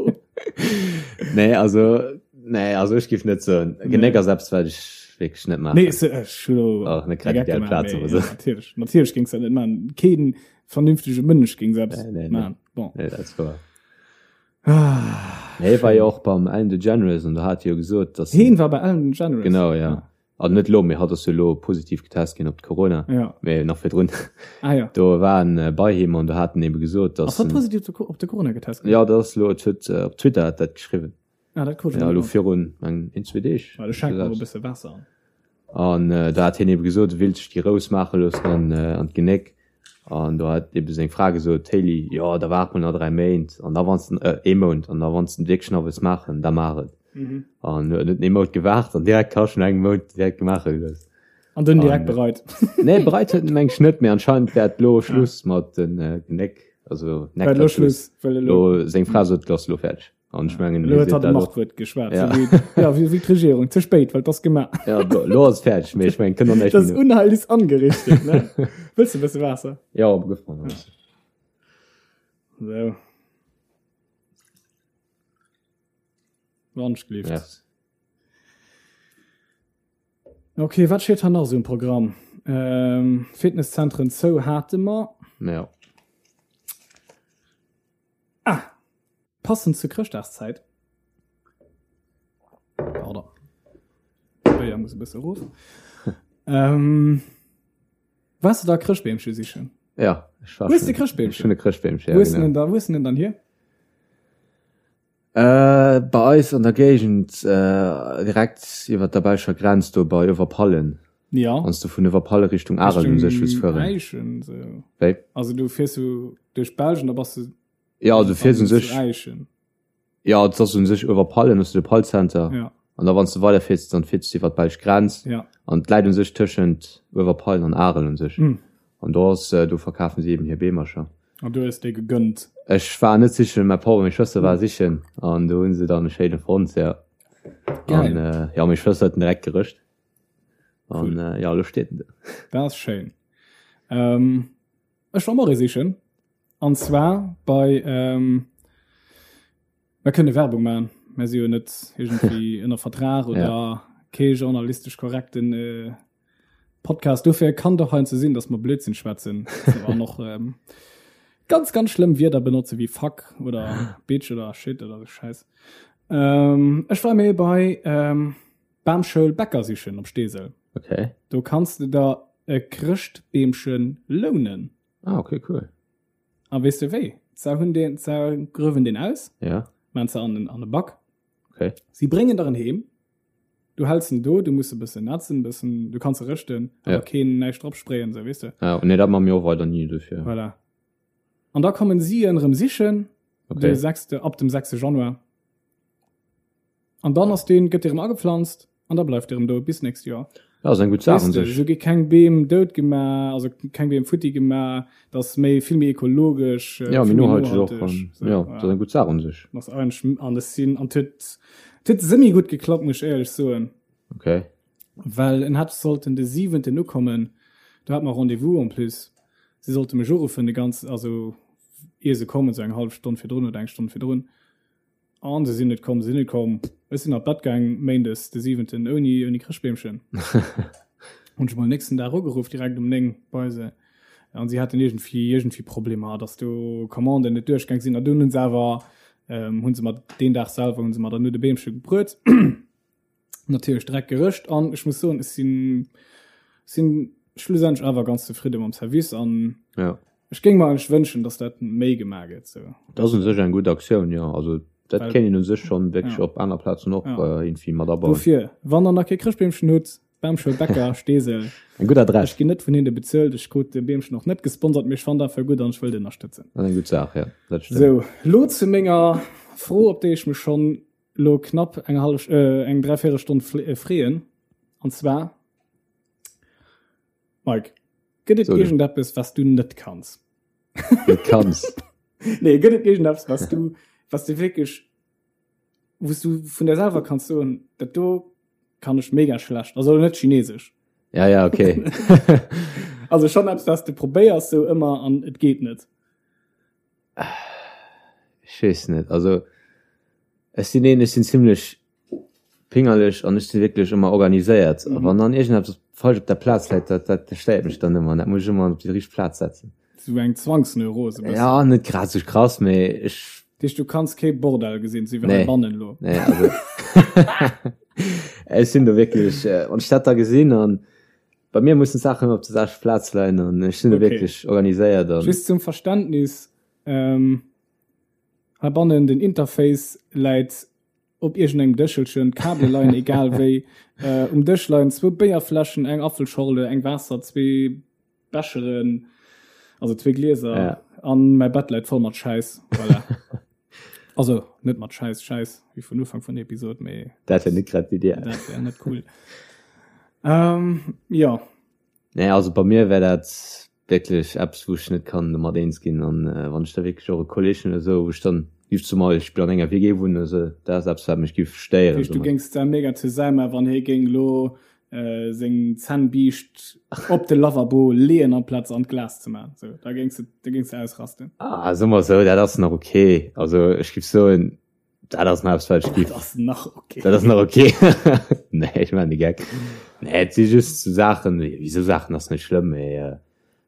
Nee, also Nee, also ech giff net soen. Genéck ass eppes, wat ech wierklech net maachen. Nee, se, ech hu lo Ach, net grad ideal Plaz, awer sou. Natierlech, natierlech géings dat net maachen. Keen vernünftege Mënsch géing sou eppes Nee, nee, nee. maachen. Bon. Nee, dat ass wouer. Ah, Nee, war jo och beim Ellen DeGeneres an do hat hie jo gesot, dass Heen war bei Ellen DeGeneres? Genau, ja. Ah. Also net elo, mee hatt ass jo elo positiv getest ginn op d'Corona. Ja. Mee nach virdrun. Ah ja. Do war en bei him an do hat en ebe gesot, dass Ass hatt positiv op de Corona getest ginn? Ja, dat ass elo, et huet op Twitter hat dat geschriwwen. Ah, dat krut ech Ja, net elo mat. virun eng, een, zwee Deeg. Well ech schenke mer e bësse Waasser an. An äh, da hat hien ebe gesot, e willt sech déi Rous maache loossen an, äh, an d'Genéck. An do hat ebe seng Fra gesot, d'Hailey, jo, da waart mol nach 3 Méint, an da wann s de, äh, ee Mount, an da wann s de wierklech nach wëlls maachen, da maach et. Mhm. An huet net ee Mount gewaart an direkt hasch no engem Mount direkt maache gelooss. An dunn direkt An- bereit. Nee, bereit huet en meng ech net, mee anscheinend wär et lo Schluss mat den äh, Genéck, also War elo Neck-Tattoos. Schluss, well elo. Lo, seng Fra sot, lo ass lo fäerdeg. An ech mengen, Lo huet seet hatt dat och. Machtwuert geschwat. Ja. So wéi, ja, wéi, wéi d'Regierung. Ze spéit, well 't ass gemaach. Ja, lo, lo ass fäerdeg, mee ech mengen, kënnt och näischt Das méi no. Unheil ist angerichtet, ne? Wëlls de e bësse Waasser? Ja, op gëff mer nach. So. Wandschlift. Merci. Okay, wat steet hei nach esou um Programm? Ähm, Fitnesszentren zou hate mer. Ja. Ah! Passend zur Chrëschtdagszäit. Pardon. Béier muss e bësse erof. ähm, Waars du da Chrëschtbeemche sichen? Ja, ech war Hues de schon- Chrëschtbeemchen? ech hunn e Chrëschtbeemchen, ja, Wo hues du genau. den da, wo hues du den dann hier? Äh, bei eis an der Géigend, äh, direkt iwwer der belscher Grenz do bei Överpallen. Ja. Wann s du vun Överpallen Richtung Arel un sech wëlls fueren. Äischen, so. Wéi? Also du fiers so duerch Belgien, da bass du Ja, du fiers un sech. Äischen. Ja, et ass un sech Överpallen, hues du de Pallcenter. Ja. An da wann s du weiderfiers, dann fiers du iwwer d'belsch Grenz. Ja. An et läit un sech tëschent Uewerpallen an Arel un sech. Mm. An do ass, do verkafen si eben hir Beemercher. An du hues déi gegönnt? Ech war net sichen, mäi Papp a meng Schwëster war sichen an do hu se dann e schéine fonnt, ja. Geil. An äh, ja, meng Schwëster huet en direkt gerëscht. An Cool. äh, ja, elo steet en do. Dat ass schéin. Ähm, ech war och ee sichen. An zwar bei, ähm, Mer kënne Werbung maachen, mer si jo net iergendwéi ënner Vertrag oder Ja. kee journalistesch korrekten äh, Podcast. Dofir kann doch heiansdo sinn, dass mer Blödsinn schwätzen an och ähm, ganz, ganz schlëmm Wierder benotze wéi fuck oder bitch oder shit oder sou Schäiss. Ähm, ech war mir bei ähm, Bamschoul Bäcker sichen op Steesel. Okay. Do kanns de der. e Chrëschtbeemche lounen. Ah, okay, cool. A weess de wéi? Se hunn deen, se gruewen deen aus, Ja, maan se an den, an de Back. okay. Si bréngen der en heem, du häls en do, du muss e bëssen nätzen, bëssen, du kanns e rëschten, Ja. awer keen näischt drop sprayen, sou, weess de. Ja, nee, dat man mir och weider ni dofir. Voilà. An da kommen si en erëm sichen, Okay. de sechste, ab dem sechste Januar. An dann ass deen, gëtt dee erëm agepflanzt an da bleift dee erëm do bis nächst Joer. Ja, ass eng gutt Saach un sech. Esou gi keng Beem dout gemaach, also keng Beem futti gemaach, dat ass méi, vill méi ekologesch, Ja, méi vill méi nohalteg och. nohalteg. An, ja, dat ass eng gutt Saach un sech. Ass eigentlech, an ech sinn, an et huet, et huet semi gutt geklappt, muss ech éierlech soen. Okay. Well en hätt sollten de siwenten ukommen, do hat mer Rendez-vous en plus. Si sollte mech uruffen de ganzen, also ier se kommen, esou eng hallef Stonn virdrun oder eng Stonn virdrun. An se sinn net komm, se sinn net komm. Ech sinn an d'Bett gaang méindes de siwenten ouni, ouni Chrëschtbeemchen. Hunn ech mol nächsten Dag ugeruff, direkt um 9 bei se. An si haten iergendwéi, iergendwéi Problemer, datt do Commanden net duerchgaang sinn. An dunn hunn se awer, hunn se mer deen Dag selwer hunn se mer dann no de Beemche gebruet. Natierlech direkt gerëscht an ech muss soen, ech sinn, sinn schlussendlech awer ganz zefridde mam Service an Ja. ech géing mer eigentlech wënschen, dass dat méi gemaach gëtt sou. Dat ass u sech eng gutt Aktioun, jo. Also dat Well- kéint een u sech schonn wierklech Ja. op aner Plazen och Ja. äh, irgendwie mat abauen. Dofir, wann der nach kee Chrëschtbeemchen hutt, Bamschoul Bäcker, Steesel, Eng gutt Adress. ech ginn net vun hinne bezuelt, ech krut de Beemchen och net gesponsert, mee ech fannen dat einfach gutt an ech wëll et ënnerstëtzen. Dat ass eng gutt Saach, ja. Dat stëmmt. Sou, lo zu menger Fro, op déi ech mech schonn lo knapp eng hallef, äh, eng dräivéierel Stonn freeën. An zwar, Mike, gëtt et So, iergendeppes, was du net kanns? Net kanns? Nee, gëtt et iergendeppes, was du, was du wierklech, wou s du vun der selwer kanns soen, dat do kann ech mega schlecht, also net Chinesesch. Ja, ja, okay. Also schon eppes, was du probéiers sou ëmmer an et geet net. Ech weess net, also ech sinn een, ech sinn zimlech pingerlech an ech si wierklech ëmmer organiséiert. A wann dann iergendeppes falsch op der Plaz läit, dat dat stéiert mech dann ëmmer an dat muss ech ëmmer op déi richteg Plaz setzen. Sou eng Zwangsneurose bëssen. Ja, net grad sou krass, mee ech. Dat heescht, du kanns kee Bordell gesinn, sou wéi heibannen elo? Nee, also ech sinn do wierklech, wann ech dat da gesinn an Bei mir mussen d'Saachen ëmmer op der selwechter Plaz leien an ech sinn do Okay. wierklech organiséiert an. Just zum Verständnis, ähm, heibannen den Interface läit op iergendengem Dëschelchen, d'Kabele leien egal wéi, äh, um Dësch leien zwou Béierfläschen, eng Apfelschorle, eng Waasser, zwee Becheren, also zwee Glieser Ja. an mäi Bett läit voll mat Schäiss. Voilà. Also net mat Schäiss, Schäiss, wéi vun Ufank vun der Episod, mee Dat wär net grad d'Idee. dat wär net cool. Ähm, ja. Nee, also bei mir wär dat wierklech eppes, wou ech net kann domat eens ginn. An äh, wann ech da wierklech och e Kolleg hunn oder esou, wou ech dann giff zum Beispill an enger WG wunnen oder esou, dat ass eppes, wat mech giff stéieren. Heescht, du géings da mega zesumme, wann hie géing lo äh, seng Zännbiischt op de Lavabo leeën amplaz an d'Glas ze man. So, da géings du, da géings du ausrasten. Ah, soe mer esou, dat ass nach okay. Also ech giff soen, dat ass nach eppes, wat ech giff. Dat ass nach okay. Dat ass nach okay. Nee, ech maachen de Geck. Nee, et si just sou Saachen, wéi sou Saachen ass net schlëmm, mee äh,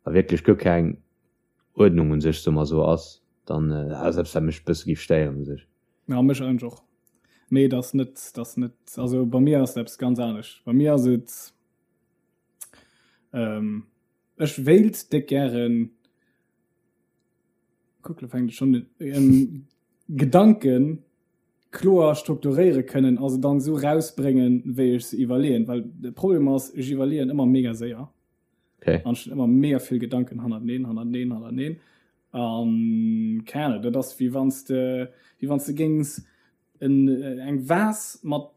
wa wierklech guer keng Uerdnung un sech, soe mer esou, ass, dann äh, dat ass eppes, wat mech e bësse giff stéieren u sech. Ja, mech eigentlech och. Mee et ass net, et ass net, also bei mir ass et eppes ganz anescht. Bei mir ass et, ähm, ech wéilt déck gären, kuck, lo fänkt et schonn un, ähm, Gedanken kloer strukturéiere kënnen a se dann esou rausbréngen, wéi ech se iwwerleeën. Well de Problem ass, ech iwwerleeën ëmmer mega séier. Okay. An ech hunn ëmmer mega vill Gedanken hannerteneen, hannerteneen, hannerteneen. An keng Ahnung, dat ass wéi wann s de, wéi wann s de géings en, eng Vase mat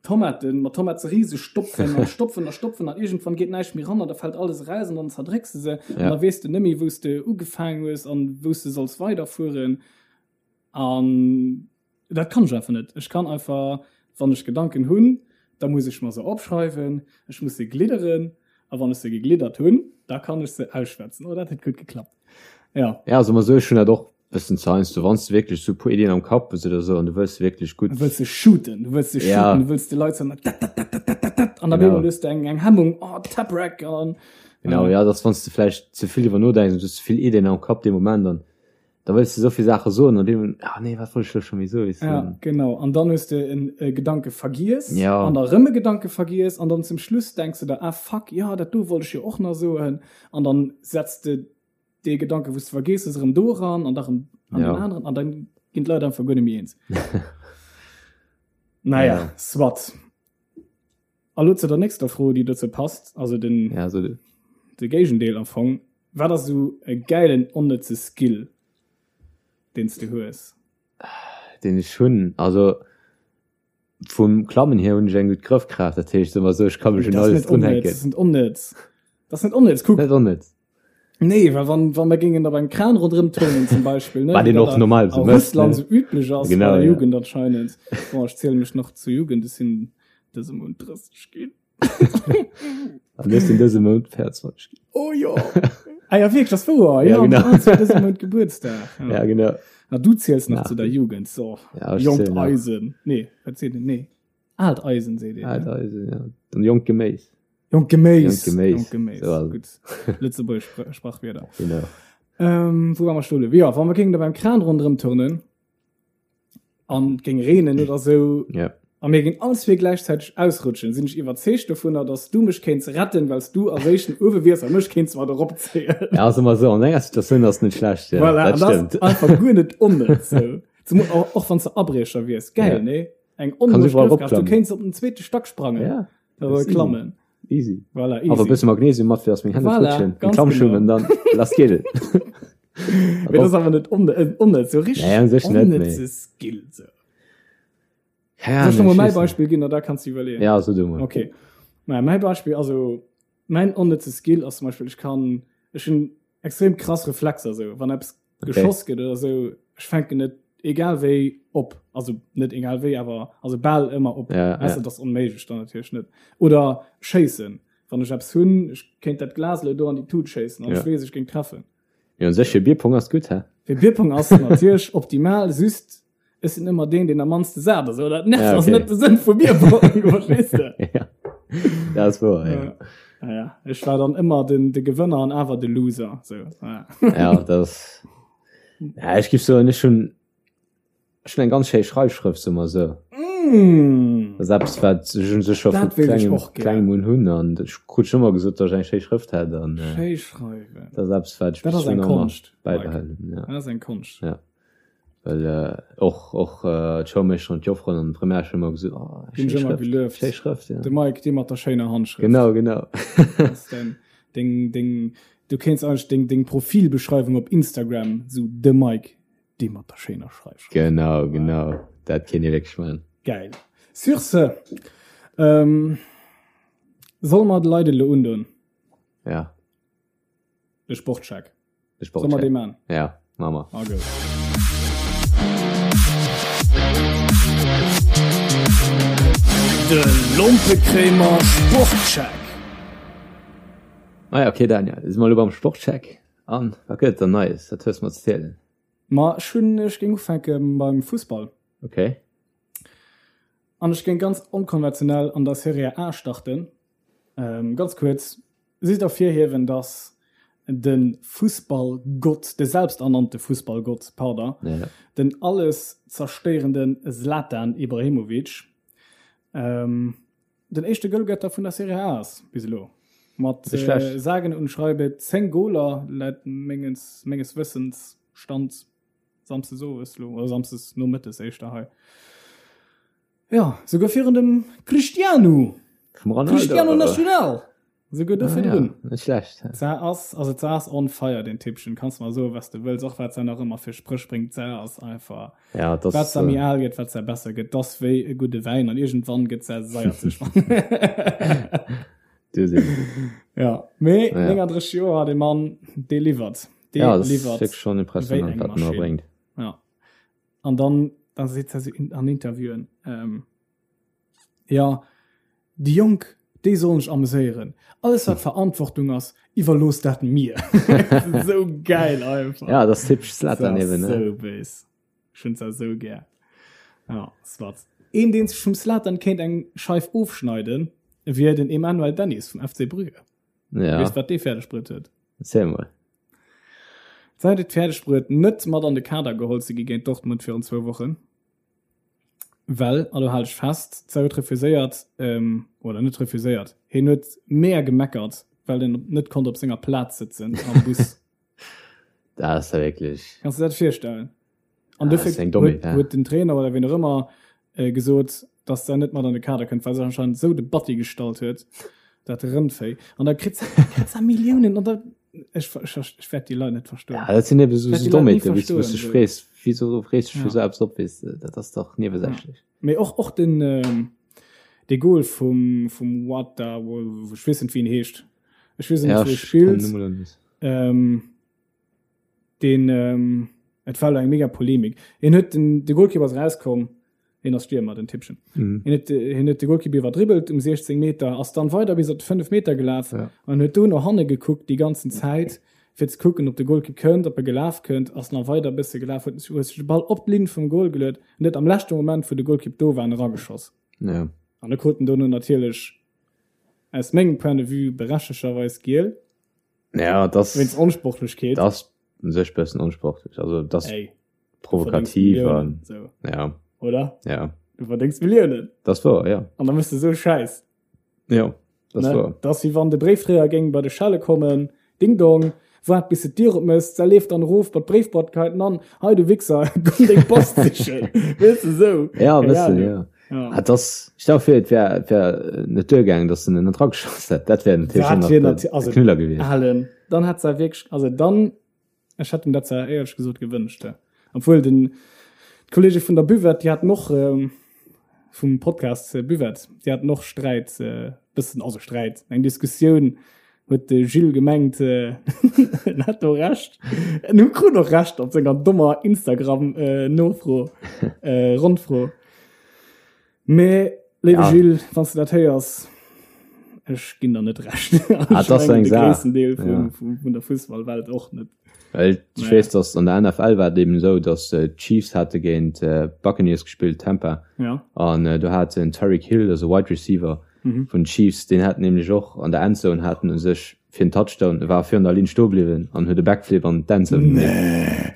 Tomaten, mat Tomaterise stopfen an stopfen a stopfen an iergendwann geet näischt méi ran an da fält alles eraus an dann zerdrécks de se an Ja. da weess de net méi, wou s de ugefaangen hues an wou s de solls weiderfueren. An Dat kann ech einfach net. Ech kann einfach, wann ech Gedanken hunn, da muss ech mer se opschreiwen, ech muss se glidderen a wann ech se gegliddert hunn, da kann ech se ausschwätzen. Oh, dat huet gutt geklappt. Ja. Ja, also mer sou, ech hunn dat och bëssen ze heiansdo, wann s de wierklech sou e puer Iddien am Kapp hues oder sou an du wëlls se wierklech gutt. Du wëlls se shooten, du wëlls se Ja. shooten, du wëlls de Leit soen, dat, dat, dat, dat, dat, dat, dat, an op Genau. eemol hues de eng, eng Hemmung, oh, Taprack, an. Genau, ja, dass wann s de vläicht ze vill driwwer nodenks an du hues ze vill Iddien am Kapp dee Moment an. Da wëlls de souvill Saache soen an deem, ah nee, wat wollt ech elo scho méi soen, weess de. Ja, genau. An dann hues de en e Gedanke vergiess Ja. an da rëm e Gedanke vergiess an dann zum Schluss denks de der, ah fuck, jo, dat do wollt ech jo och nach soen. An dann setz de dee Gedanke, wou s de vergiess hues, erëm do eran an da rëm an Ja. den aneren an dann ginn d'Leit einfach guer net méi eens. Naja, Ja. soit. A lo zu der nächster Fro, déi dozou passt, also den, Ja, so de. de Géigendeel am Fong. Wat ass esou e gäilen onnëtze Skill, deen s de hues? Deen ech hunn? Also vum Klammen hier hunn ech eng gutt Grëffkraaft, dat heescht, soe mer esou, ech ka mech un Dat ass alles net onnëtz, drunhänken. dat ass net onnëtz. Dat ass net onnëtz, kuck. Net onnëtz. Nee, well wann, wann mer géingen op engem Kran ronderëm turnen zum Beispill, ne, Wat wéi een dat och a, normal a sou mécht, Russland ne? sou üblech ass bei Genau, der ja. Jugend anscheinend. Bon, ech ziele mech nach zur Jugend, ech sinn dëse Mount 30 ginn. An ech sinn dëse Mount 24 ginn. Oh jo! Ah ja, wierklech, das wouer. Ja, Ja, genau. du hues dëse Mount Gebuertsdag. Ja, ja genau. Na, du ziels nach Nach. zu der Jugend, so. Ja, ech Jonkt zielen nach. Eisen. Nee, wat seet een? Nee. Aalt Eisen seet een. Aalt Eisen, ja. Dann jonkt Geméis. Jonkt Geméis. Jonkt Geméis. Jonkt Geméis. So, also. Gutt. Lëtzebuergesch Spr Sprachwierder. Genau. Ähm, wou war mer stoe? Ja, wann mer géingen da beim Kran ronderëm turnen an et géing reenen oder sou Ja. a mir géingen all zwee gläichzäiteg ausrutschen, sinn ech iwwerzeegt dovunner, dass du mech kéints retten, well s du als éischten uewe wiers a mech kéints mat eropzéien. Ja, also mal so, an enger Situatioun ass net schlecht. Ja, Voilà, dat an das stimmt. einfach guer net onnëtz. Sou. Zum, och, och wann s de Abriecher wiers. Geil, Ja. nee? Eng Kannst onméiglech überall Grëffkraft. Du ropklammen. kéints op den zweete Stack sprangen. Ja, Oder das ist klammen. easy. Voilà, Awer e easy. bësse Magnesium mat, fir dass meng Hänn net Voilà, rutschen. ganz Klammschuhen genau. an dann lass geet et. Mee das ass awer net onne- äh, onnëtz, so richtig Nee, an sech net, nee. onnëtze Skill. So. Keine Soll ich noch mal Ahnung, mein ich weiß Beispiel ginn, da kannst du iwwerleeën. nicht. Ja, so du mal. Okay. Naja, mein Beispiel, also mein onnëtze Skill ass zum Beispiel, ech kann, ech hunn extrem krass Reflexer, so. Wann eppes Okay. geschoss gëtt oder sou, ech fänken net egal wéi op. Also net egal wéi, awer also bal ëmmer op. Ja, Weißt ja. du, das ass onméiglech dann natierlech net. Oder schéissen. Wann ech eppes hunn, ech kéint dat Glas elo do an déi Tut schéissen an Ja. ech weess, ech géing treffen. Ja, un sech fir Bierpong ass gutt, hä? Fir Bierpong ass natierlech optimal, just ech sinn ëmmer deen, deen am mannste sat ass. Oder dat nervt, Ja, ass okay. net de Sënn vu Bierpong, verstees de? Ja. Dat ass wouer, ja. Ja. Naja, ech war dann ëmmer den, de Gewënner an awer de Loser. So, ja. Ja, dat ass. Ja, ech giff soen, ech hunn ech hunn eng ganz schéi Schreifschrëft, soe mer esou. Mm. Dat ass eppes, wat ech un sech scho vu Dat wéilt ech klengem, och gär. klengem un hunn an ech krut schon ëmmer gesot, datt ech eng schéi Schrëft hätt an äh, Schéi schreiwen. dat ass eppes, wat ech Dat bis ass eng elo nach ëmmer Konscht, Mike. bäibehalen hunn, ja. Dat ass eng Konscht. Ja. Well äh, och, och äh, d'Schoulmeeschter an d'Jofferen an d'Primärschoul ëmmer gesot, oh, Ginn schéi ech ëmmer Schrëft, gelueft. schéi Schrëft, ja. De Mike, dee mat der schéiner Handschrëft. Genau, genau. Das ist dein, deng, deng, du kéints eigentlech deng, deng Profilbeschreiwung op Instagram, sou de Mike, dee mat der schéiner Schreifschrëft. Genau, genau. Dat kéint ee wierklech maachen. Geil. Sur ce, ähm, solle mer de Leit elo undoen? Ja. De Sportcheck. De Soll mer Sportcheck. dee man? Ja, ma mer. Ah, gut. De Lompekréimer Sportcheck. Ah ja, okay, Daniel, si mer elo beim Sportcheck. An wat gëtt et dann Neies? Wat hues de mer ze zielen? Ma ech hunn, ech géing ufänke beim Fussball. Okay. An ech géing ganz onkonventionell an der Serie A starten. Ähm, ganz kuerz, Just ervirhiewen, dass de Fussballgott, de selbsternannte Fussballgott, pardon, ja. den alles zerstéierende Zlatan Ibrahimovic, ähm, den éischte Goalgetter vun der Serie A ass bis elo. Mat äh, sagen und schreibe 10 Goler laut menges, menges Wëssens Stand Samsdes owes lo, oder Samsdes nomëttes éischter hei. Jo, souguer virun dem Cristiano. Vum Ronaldo. Cristiano National. Souguer do Ah, virdrun. ja, net schlecht. Za ass, also za ass on fire, den Typchen. Kanns mer soen, was de wëlls, och wat se nach ëmmer fir Spréch bréngt. Za ass einfach, Ja, das, wat se méi äh, al gëtt, wat se besser gëtt. Das wéi e gudde Wäin an iergendwann gëtt se saierzeg. du sinn. Ja, mee Ja. 39 Joer, de Mann, dee liwwert. Dee Ja, das ist liwwert. wirklich schon wéi impressionant, eng wat en da Maschinn. bréngt. Ja. An dann, dann seet se in, an Interviewen, ähm, ja, déi Jonk, déi sollen sech ameséieren. Alles wat Verantwortung ass, iwwerloosst dat mir. Sou geil einfach. Ja, das ist typisch Zlatan Das ass eben, ne? sou béis. Ech hunn se sou gär. Ja, soit. Een, deen sech vum Zlatan kéint eng Scheif ofschneiden, wier den Emmanuel Dennis vum FC Brügge. Ja. Weess wat dee fäerdeg bruet huet? Erzähl mol. D'Sait huet et fäerdeg bruet, net mat an de Kader geholl ze gi géint Dortmund virun zwou Wochen, well, a lo hal dech fest, d'Sait huet refuséiert, oder net refuséiert, hien huet mega gemeckert, well en net konnt op senger Plaz sëtzen am Bus. Dat ass ja wierklech. Kanns de dat virstellen? An dofir huet, huet den Trainer oder wien och ëmmer äh, gesot, dass se net mat an de Kader kënnt, well se anscheinend esou de Batti gestallt huet, dat Rëndvéi. An da kritt se, kritt se Milliounen an da ech, ech, ech wäert déi Leit net verstoen. Ja, dat sinn eben so, so Dommheeten, wou du dech frees, wieso frees du dech fir sou eppes op, weess de, dat ass dach niewesächlech. Ja. Mee och, och den, ähm, de Goal vum, vum Wata, ech weess net, wéi en heescht. Ech weess net, wou e spillt. Ähm, deen ähm, et war eng mega Polemik. En huet den de Goalkeeper ass rauskomm, en ass Stürmer den Tippchen. Mhm. En huet en huet de Goalkeeper iwwerdribbelt um 16 Meter, ass dann weider bis op 5 Meter gelaf ja. an huet do no hanne gekuckt déi ganzen Zäit fir ze kucken, ob de Goalkeeper kënnt, ob e gelaf kënnt, ass nach weider bësse gelaf, huet huet sech de Ball op d'Linn vum Goal geluet an huet am leschte Moment, wou de Goalkeeper do war, erageschoss. Ja. An da krut en dono natierlech aus mengem Point de vue berechtegerweis giel. Ja, das wéinst Onsportlechkeet. Das un sech bëssen onsportlech. Also das Ey, provokativ an so. ja. Oder? Ja. Du verdéngs Milliounen. Das war ja. An da mëss du sou Schäiss. Ja, das ne? war. Das wéi wann de Bréifdréier géing bei de Schelle kommen, Ding dong, waart bis de d'Dier opmëss, da leeft dann erof bei d'Bréifboîte, geheit en an, hei du Wichser, komm deng Post sichen. Weess de sou. Ja, e bëssen, ja. Ja. Ah, das, stell dir vor, et wär, et wär net duergaangen, dass en net rageschoss hätt. Dat wär natierlech Dat nach wär de, nati- de also, Knüller gewiescht. Alen, dann hätt se wierklech, also dann, ech hätt em dat zwar éierlech gesot gewënscht, ja. Obwuel den, d'Kollege vun der Buvette, déi haten och, ähm, vum Podcast äh, Buvette, déi haten och Sträit, äh, bëssen, also Sträit, eng Diskussioun, huet de Gilles gemengt, äh, en hätt do Recht. En hu krut och Recht op senger dommer Instagram, äh, Nofro, äh, Rondfro. Mee, léiwe Ja. Gilles, wann s de dat héiers, ech ginn der net Recht. Ah, Ech dat ass mengen, eng de Saach. gréissten Deel vum, Ja. vum, vun der Fussballwelt och net. Well ech Naja. weess, dass an der NFL war et eben esou, dass d'Chiefs hate géint d'Buccaneers gespillt, Tampa, Ja. an do hat den Tyreek Hill, also Wide Receiver vun den Chiefs, deen hat nämlech och an der Endzone hat en u sech fir en Touchdown, e war virun der Linn stoe bliwwen an huet e Backflip an d'Endzone gemeet.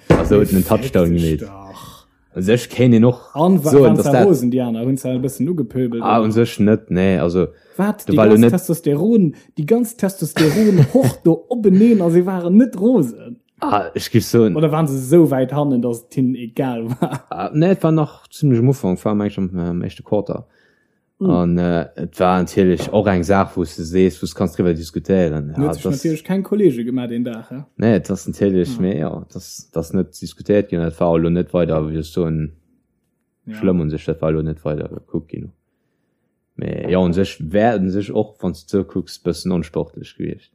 Nee. A sou huet en en Touchdown Fick dech gemeet. dach. U sech kéint een och An soen, waren dass se dat. rosen, déi aner? Hunn se e bëssen ugepöbelt? Ah, u sech net, nee. Also, Wat? do Déi war elo ganz net. Testosteron, déi ganz Testosteron-Hord do openeen a si waren net rosen? Ah, ech géif soen. Oder waren se esou wäit hannen, dass et hinnen egal war? Ah, nee, et war nach zimlech um Ufank, war meng ech am, am éischte Quarter. An et war natierlech och eng Saach, wou s de sees, wou s kanns driwwer diskutéieren. En huet sech natierlech keng Kolleege gemaach deen Dag, he? Nee, et ass natierlech, mee jo, et ass, et ass net diskutéiert ginn an et war och elo net weider, wéi soll ech soen, schlëmm un sech. Dat war elo net weider gekuckt ginn. Mee jo, un sech wär et un sech och, wann s de et esou kucks, bëssen onsportlech gewiescht.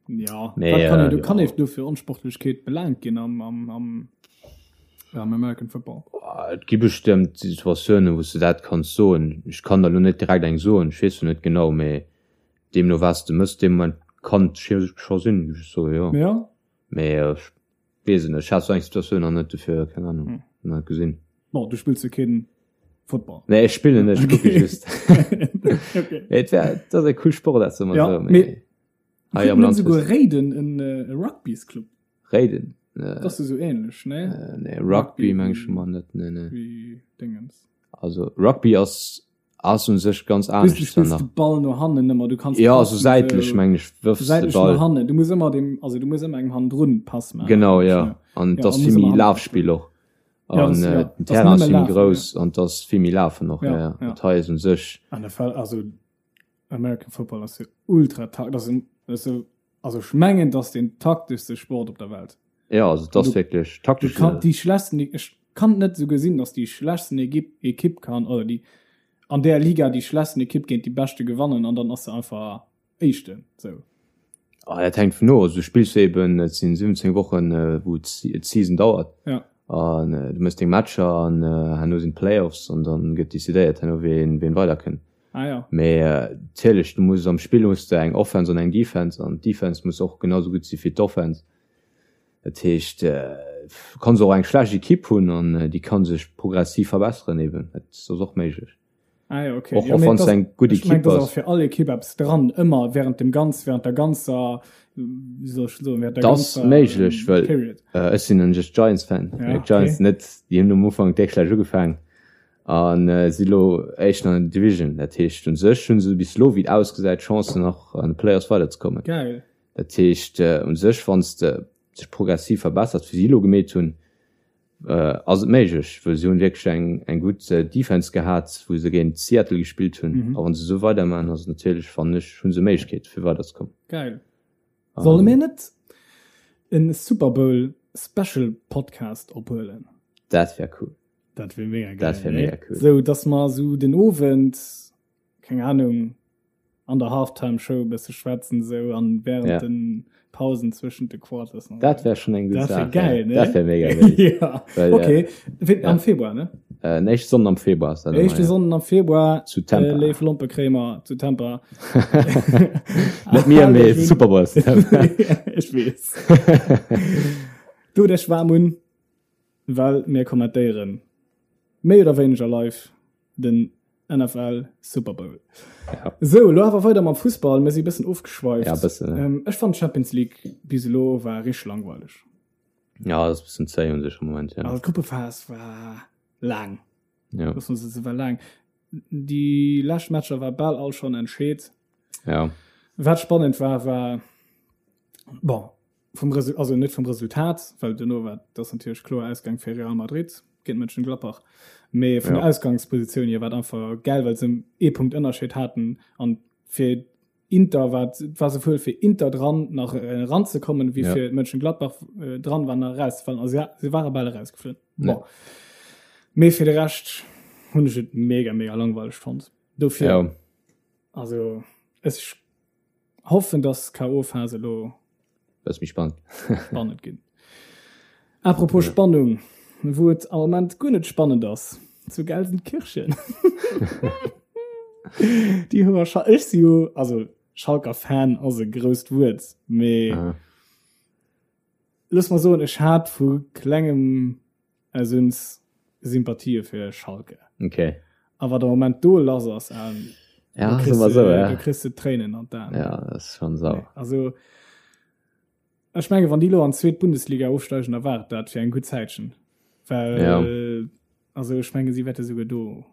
Ja, nee, wat kann äh, du kann ja. du fir Onsportlechkeet belangt ginn am, am, am, am American Football? Et gi bestëmmt Situatiounen, wou du dat kanns soen. Ech kann der lo net direkt eng soen, ech weess net genau, mee deemno was de mëss deem Moment kann scho sinn, géif ech soen, jo. Ja. Mee äh, ech weess et net, ech hat sou eng Situatioun nach net, dofir keng Ahnung, hm. net gesinn. Bon, du spills jo keen Football. Nee, ech spillen net, ech kucke okay. just. okay. Mee et wär, dat ass e cool Sport, dat ja, so, mee. Hei am Land. Souguer Réiden en Rugby's-Club. Réiden? Dat ass jo sou ähnlech, ne? Nee, Rugby meng ech mol net, nee, nee. Wéi Dingens. Also Rugby ass ass un sech ganz anescht. Du spills de Ball no hannen ëmmer, du kanns. Ja, sou säitlech meng ech wërfs de Ball. Säitlech no hannen, du muss ëmmer dem, also du muss ëmmer engem hannendrun Pass maachen. Genau, ja. An et ass vill méi Lafspill och. An den Terrain ass vill méi grouss an et ass vill méi Lafen och, ja, ja. Dat hei ass un sech. NFL, also American Football ass jo ultra tak das ass jo also ech mengen dass den takteschste Sport op der Welt. Ja also das du, wirklich taktisch. Kann, die schlechtsten ech kann net so gesinn, dass die schlechtsten Equipe Equipe kann oder die an der Liga die schlechtsten Equipe géint die beschte gewannen an dann ass se einfach éischten sou. Ah, dat hänkt vun of. Also du spills eben, et sinn 17 Wochen, wou d'Season dauert. Ja. An du mëss deng Matcher an herno sinn d'Playoffs an dann gëtt decidéiert herno ween ween weiderkënnt. Ah, ja. Mee natierlech, du muss am Spill hues de eng Offense an eng Defense an d'Defense muss och genau sou gutt si wéi d'Offense. Dat heescht, du kanns och eng schlecht Ekipp hunn an déi ka sech progressiv verbesseren eben. Dat ass och méiglech. Ah, ja, okay. Och, och wann s eng gutt Ekipp ass. Fir all Ekipp eppes dran, ëmmer während dem ganz, während der ganzer, wéi soll ech soen, während der Dat ass ganzer méiglech, well Period. ech sinn en just Giants-Fan. Ja, Giants okay. net, déi hunn um Ufank déck schlecht ugefaangen an si lo éischten an der Division. Dat heescht, u sech hu se bis elo, wéi et ausgesäit, Chancen nach an de Playoffs weiderzekommen. Geil. Dat heescht, u sech, wann s de sech progressiv verbessert, wéi si elo gemeet hunn, Ass et méiglech, well se hunn wierklech eng eng gutt Defense gehat, wou se géint Seattle gespillt hunn. A wann se esou weidermaachen, ass et natierlech, fannen ech, hu se Méiglechkeet fir weiderzekommen. Geil. Solle mir net en Super Bowl Special Podcast ophuelen? Dat wär cool. Dat wär mega geil. Dat wär mega cool. Sou dass mer sou den Owend, keng Ahnung, an der Halftime Show e bësse schwätzen sou an während ja. den Pausen zwëschent de Quarters. Dat wär schon eng gutt Dat wär Saach. geil, ne? Dat wär mega geil. ja. Well, Okay, Wéi- ja. am Februar, ne? Äh, den éischte Sonnden am Februar ass dat ëmmer, Éischte ja. Sonnden am Februar Zu Tampa. Äh, léif Lompekréimer zu Tampa. Net mir, mee Super Bowl ass zu Tampa. Ech weess. Du dech waarm un, well mir kommentéieren méi oder wéineger live den NFL Super Bowl. Ja. Sou, lo awer weider mam Fussball. Mir si bëssen ofgeschweift. Ja, bëssen, ja. Ähm, ech fand Champions League bis elo war richteg langweileg. Ja, dat ass bëssen zéi un sech am Moment, ja. Also d'Gruppephas war laang. Ja. Loosse mer se war laang. Déi lescht Matcher war bal all schonn entscheet. Ja. Wat spannend war, war bon, vum Resu also net vum Resultat, well duerno war dat ass natierlech kloer Ausgang fir Real Madrid géint Mönchengladbach, mee vun Ja. der Ausgangspositioun hier war et einfach geil, well se ee Punkt Ënnerscheed haten an fir Inter war et war souwuel fir Inter dran nach eranzekommen, wéi Ja. fir Mönchengladbach dran war nach erauszefallen. Also ja, se ware bal erausgeflunn. Ja. Bon. Mee fir de Rescht hunn ech et mega mega langweileg fonnt. Dofir Ja. also ech Hoffen dass KO Phase elo Bësse méi spannend. spannend ginn. Apropos Spannung, wou et am Moment guer net spannend ass, zu Gelsenkirchen. Déi hu mer ech si jo also Schalker Fan ass e grousst Wuert, mee Aha. looss mer soen, ech hat vu klengem Aus Sympathië fir Schalke. Okay. A wat am Moment do lass ass, ähm, ja, du kriss, so, ja. du kriss de Tréinen an d'Aen. Ja, das ist schon sauer. Also, ech menge wann déi lo an d'zweet Bundesliga ofsteigen, da war et dat fir eng gutt Zäitchen. Well, ja. also ech menge si wäerte souguer do.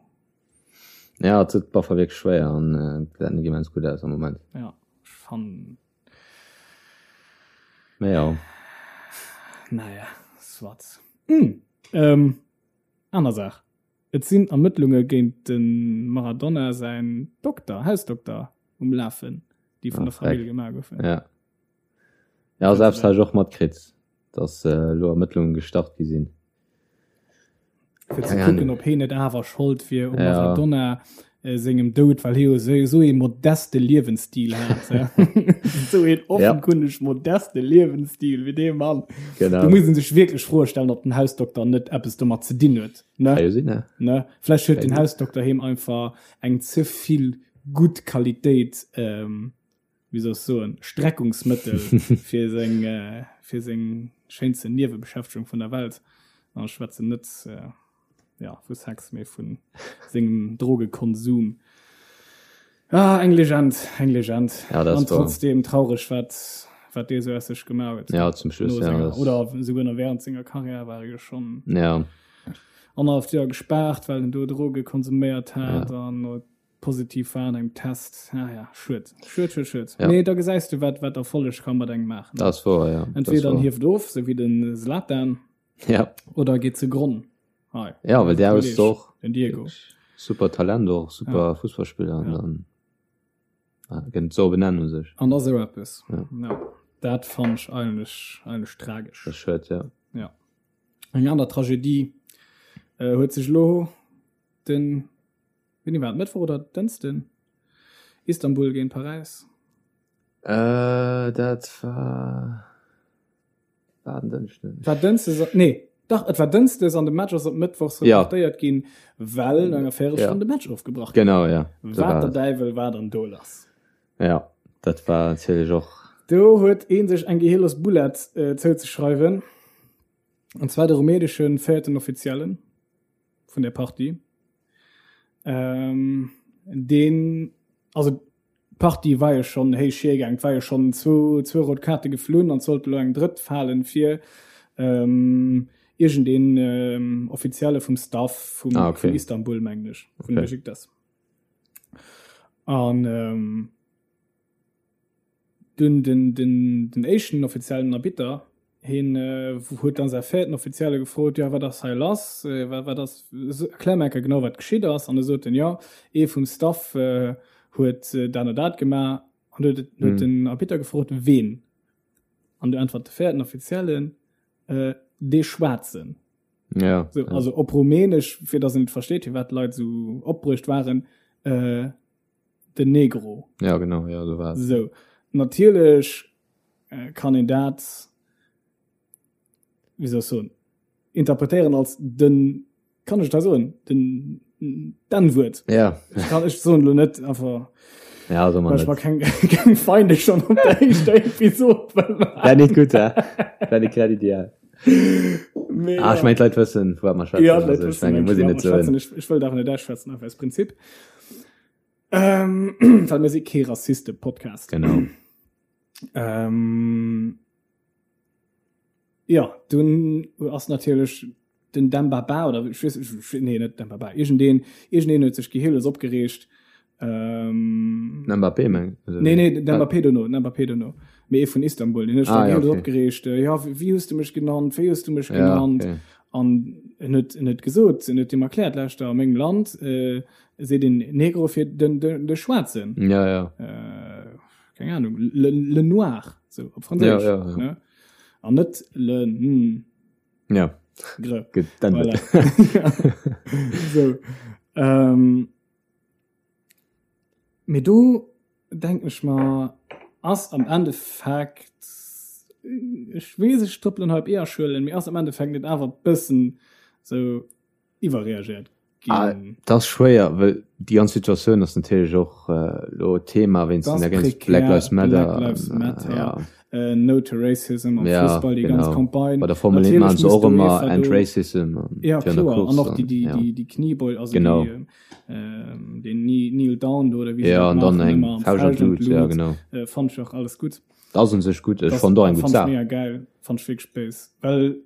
Ja, et huet Baffer wierklech schwéier an äh, dat net immens gutt aus am Moment. Ja, ech fannen Mä ja. Naja, soit. Hm, ähm, aner Saach. Et sinn Ermëttlunge géint de Maradona säin Dokter, Hausdokter um Lafen, déi vun Ah, der Famill freck. gemaach goufen. Ja. Ja, selbst hat ech och matkritt, dass äh, elo Ermëttlunge gestart gi sinn. Fir ze Keng kucken, Ahnung. ob heen net awer Schold wier um Ja. Maradona äh, sengem Doud, well hie jo sou sou ee modeste Liewensstil hat. ja. Sou een offenkundig modeste Liewensstil wéi dee Mann. Genau. Do muss een sech wierklech Froe stellen, ob den Hausdokter net eppes domat ze dinn huet. Ne? Kann jo sinn, ne? Ne? Vläicht huet den Kann Hausdokter him einfach eng ze vill gutt Qualitéit ähm, wéi soll ech soen, Streckungsmëttel fir seng, fir seng schéinsten Niewebeschäftegung vun der Welt. An ech schwätzen net, ja, vu Sex, mee vu sengem Drogekonsum. Ah, eng Legend, eng Legend. Ja, dat An ass wahr. trotzdem traureg, wat, wat dee sou aus sech gemaach huet. Ja, zum Schluss, No ja, senger, das- oder souguer nach während senger Karriär war e jo schonn Ja, annerhaleft Joer gespaart, well en do Droge konsuméiert hat Ja. an Positiv war an engem Test. Ah ja, schued. Schued, schued, schued. Ja. Nee, da gesäis du, wat, wat Erfolleg ka mat engem maachen. Dat ass wouer, ja. Entweder en hieft of, sou wéi den Zlatan, Ja. oder geet ze Gronn. Hei. Ja, well der ass och Den Diego. super Talent och, super Ja. Fussballspiller an Ja. dann ah, gëtt et sou benennen u sech. An da sou eppes. Ja. Ja. Dat fannt ech eigentlech, eigentlech tragesch. Dat ass schued, ja. Ja. Eng aner Tragedie äh, huet sech elo den Wéini war et? Mëttwoch oder Dënschden? Istanbul géint Paräis. Äh, dat war war en Dënschden. War Dënschdes, nee, dach, et war Dënschdes an de Match ass op Mëttwochs Ja. reportéiert ginn, well no enger Véierelstonn Ja. de Match ofgebrach gouf. Genau, ja. So Wat war der et. Däiwel war dann do lass? Ja, dat war natierlech och. Do huet ee sech eng gehirlos Boulette äh, zouzeschreiwen. An zwar de rumänesche véierten Offiziellen. vun der Partie. Ähm, deen, also d'Partie war jo schonn héich hiergaang, et war jo schonn zwou, zwou rout Kaarte geflunn an et sollt elo eng drëtt falen fir ähm, iergendeen ähm, Offizielle vum Staff vum, ah, okay. vun Istanbul, mengen ech, vun okay. Besiktas. An ähm, Dunn den, den, den éischten offiziellen Arbitter, hien huet dann säi véierten Offizielle gefrot, jo, wat ass hei lass, wat, wat ass, erklär mer eng Kéier genau, wat geschitt ass. An da sot en, jo, ee vum Staff huet dat an dat gemaach. An du huet, huet den Arbitter gefrot, ween? An du äntwert de véierten Offiziellen, dee Schwaarzen. Ja. So, also op Rumänesch, fir datt en et versteet, firwat d'Leit esou opbruecht waren, den Negro. Ja genau, ja so war So natierlech äh, kann een dat wéi soll ech soen interpretéieren als den kann ech da soen den d'N-Wuert. Ja. Ech kann ech soen lo net awer Ja, so man ech war keng keng Feinde schon op der éischter Episode. Wär net gutt, hä? Wär net grad ideal. Mee, Ah, ech ja. mengen d'Leit wëssen, vu wat mer schwätzen. Ja, d'Leit Also, ech wëssen, mengen, mengen muss ech, een wat net mer schwätzen. soen. Ech, ech wëllt awer net ausschwätzen, einfach aus Prinzip. Ähm, well mir si kee Rassiste-Podcast. Genau. Ähm, ja, dunn ass natierlech den Demba Ba oder ich weess, ich, nee, net Demba Ba, iergendeen, iergendeen huet sech gehirlos opgereegt. Ähm, Den Mbappé meng also, Nee, nee, den Mbappé dono, den Mbappé dono. Mee ee vun Istanbul, den huet sech Ah, ja, gehirlos okay. opgereegt. Äh, ja, wéi hues du mech genannt? Wéi hues du mech Ja, genannt? okay. An en huet, en huet gesot, en huet him erkläert, lauschter, a mengem Land, äh, seet een Negro fir den, den, de Schwaarzen. Ja, ja. Äh, keng Ahnung, le, le Noir, so op Franséisch. Ja, ja, ja. Ne? An net le mm, Ja, gre. gutt, dann Voilà. so. Ähm, mee do denken ech mer, ass am Endeffekt, ech weess, ech trëppelen hei op Eeërschuelen, mee ass am Endeffekt net awer bëssen sou iwwerreagéiert ginn? Ah, dat ass schwéier, well déi ganz Situatioun ass natierlech och elo Thema wéinst Das den ganz prekär, Black Lives Matter. Black Lives an, Matter, ja. äh, No to Racism am Ja, Fussball, déi ganz genau. Campagne. Bei der Formel 1 Natierlech maachen se muss och ëmmer d'UEFA End do Racism an Ja, fir an der kloer. An Course och déi, an, déi, ja. déi, déi Kniebeul, also Genau. déi, ähm, den Kneel Down do, oder wéi se Ja, dat an dann maachen, eng ëmmer am Fauscht an Fauscht an d'Lut, ja, d'Lut. genau. Äh, fand ech och alles gutt. Dat ass un sech gutt, ech Das fand och eng gutt fand ech Saach. mega geil, fand ech wierklech béis. Well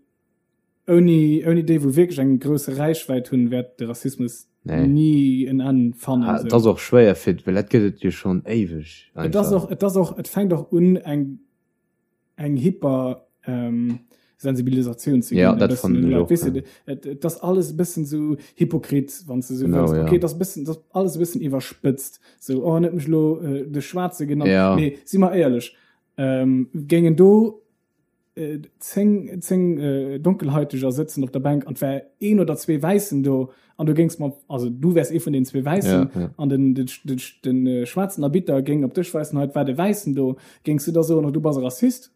ouni, ouni déi, wou wierklech eng grousse Räichwäit hunn, wäert de Rassismus Nee. ni en Enn fannen. Ah, sou. et ass och schwéier fir, well dat gëtt et jo schonn éiweg Et ass einfach. och, et ass och, et fänkt och un eng, eng hyper ähm, Sensibilisatioun ze Ja, ginn, e dat bëssen fannen un ech Leit. och, Weess ja. de, et, et ass alles e bëssen sou hypokrit, wann s de sou Genau, wëlls. ja. Okay, et ass e bëssen, et ass alles e bëssen iwwerspëtzt. Sou, oh, en huet mech elo äh, de Schwaarze genannt. Ja. Mee si mer éierlech, ähm, géingen do 10, 10 Donkelhaiteger sëtzen op der Bänk an wär een oder zwee Wäissen do an du géings mat, also du wärs ee vun den zwee Wäissen ja, ja. an den, den, den, den äh, schwaarzen Arbitter géing op dech weisen, hei war de Wäissen do, géings du da soen, oh, du bass e Rassist?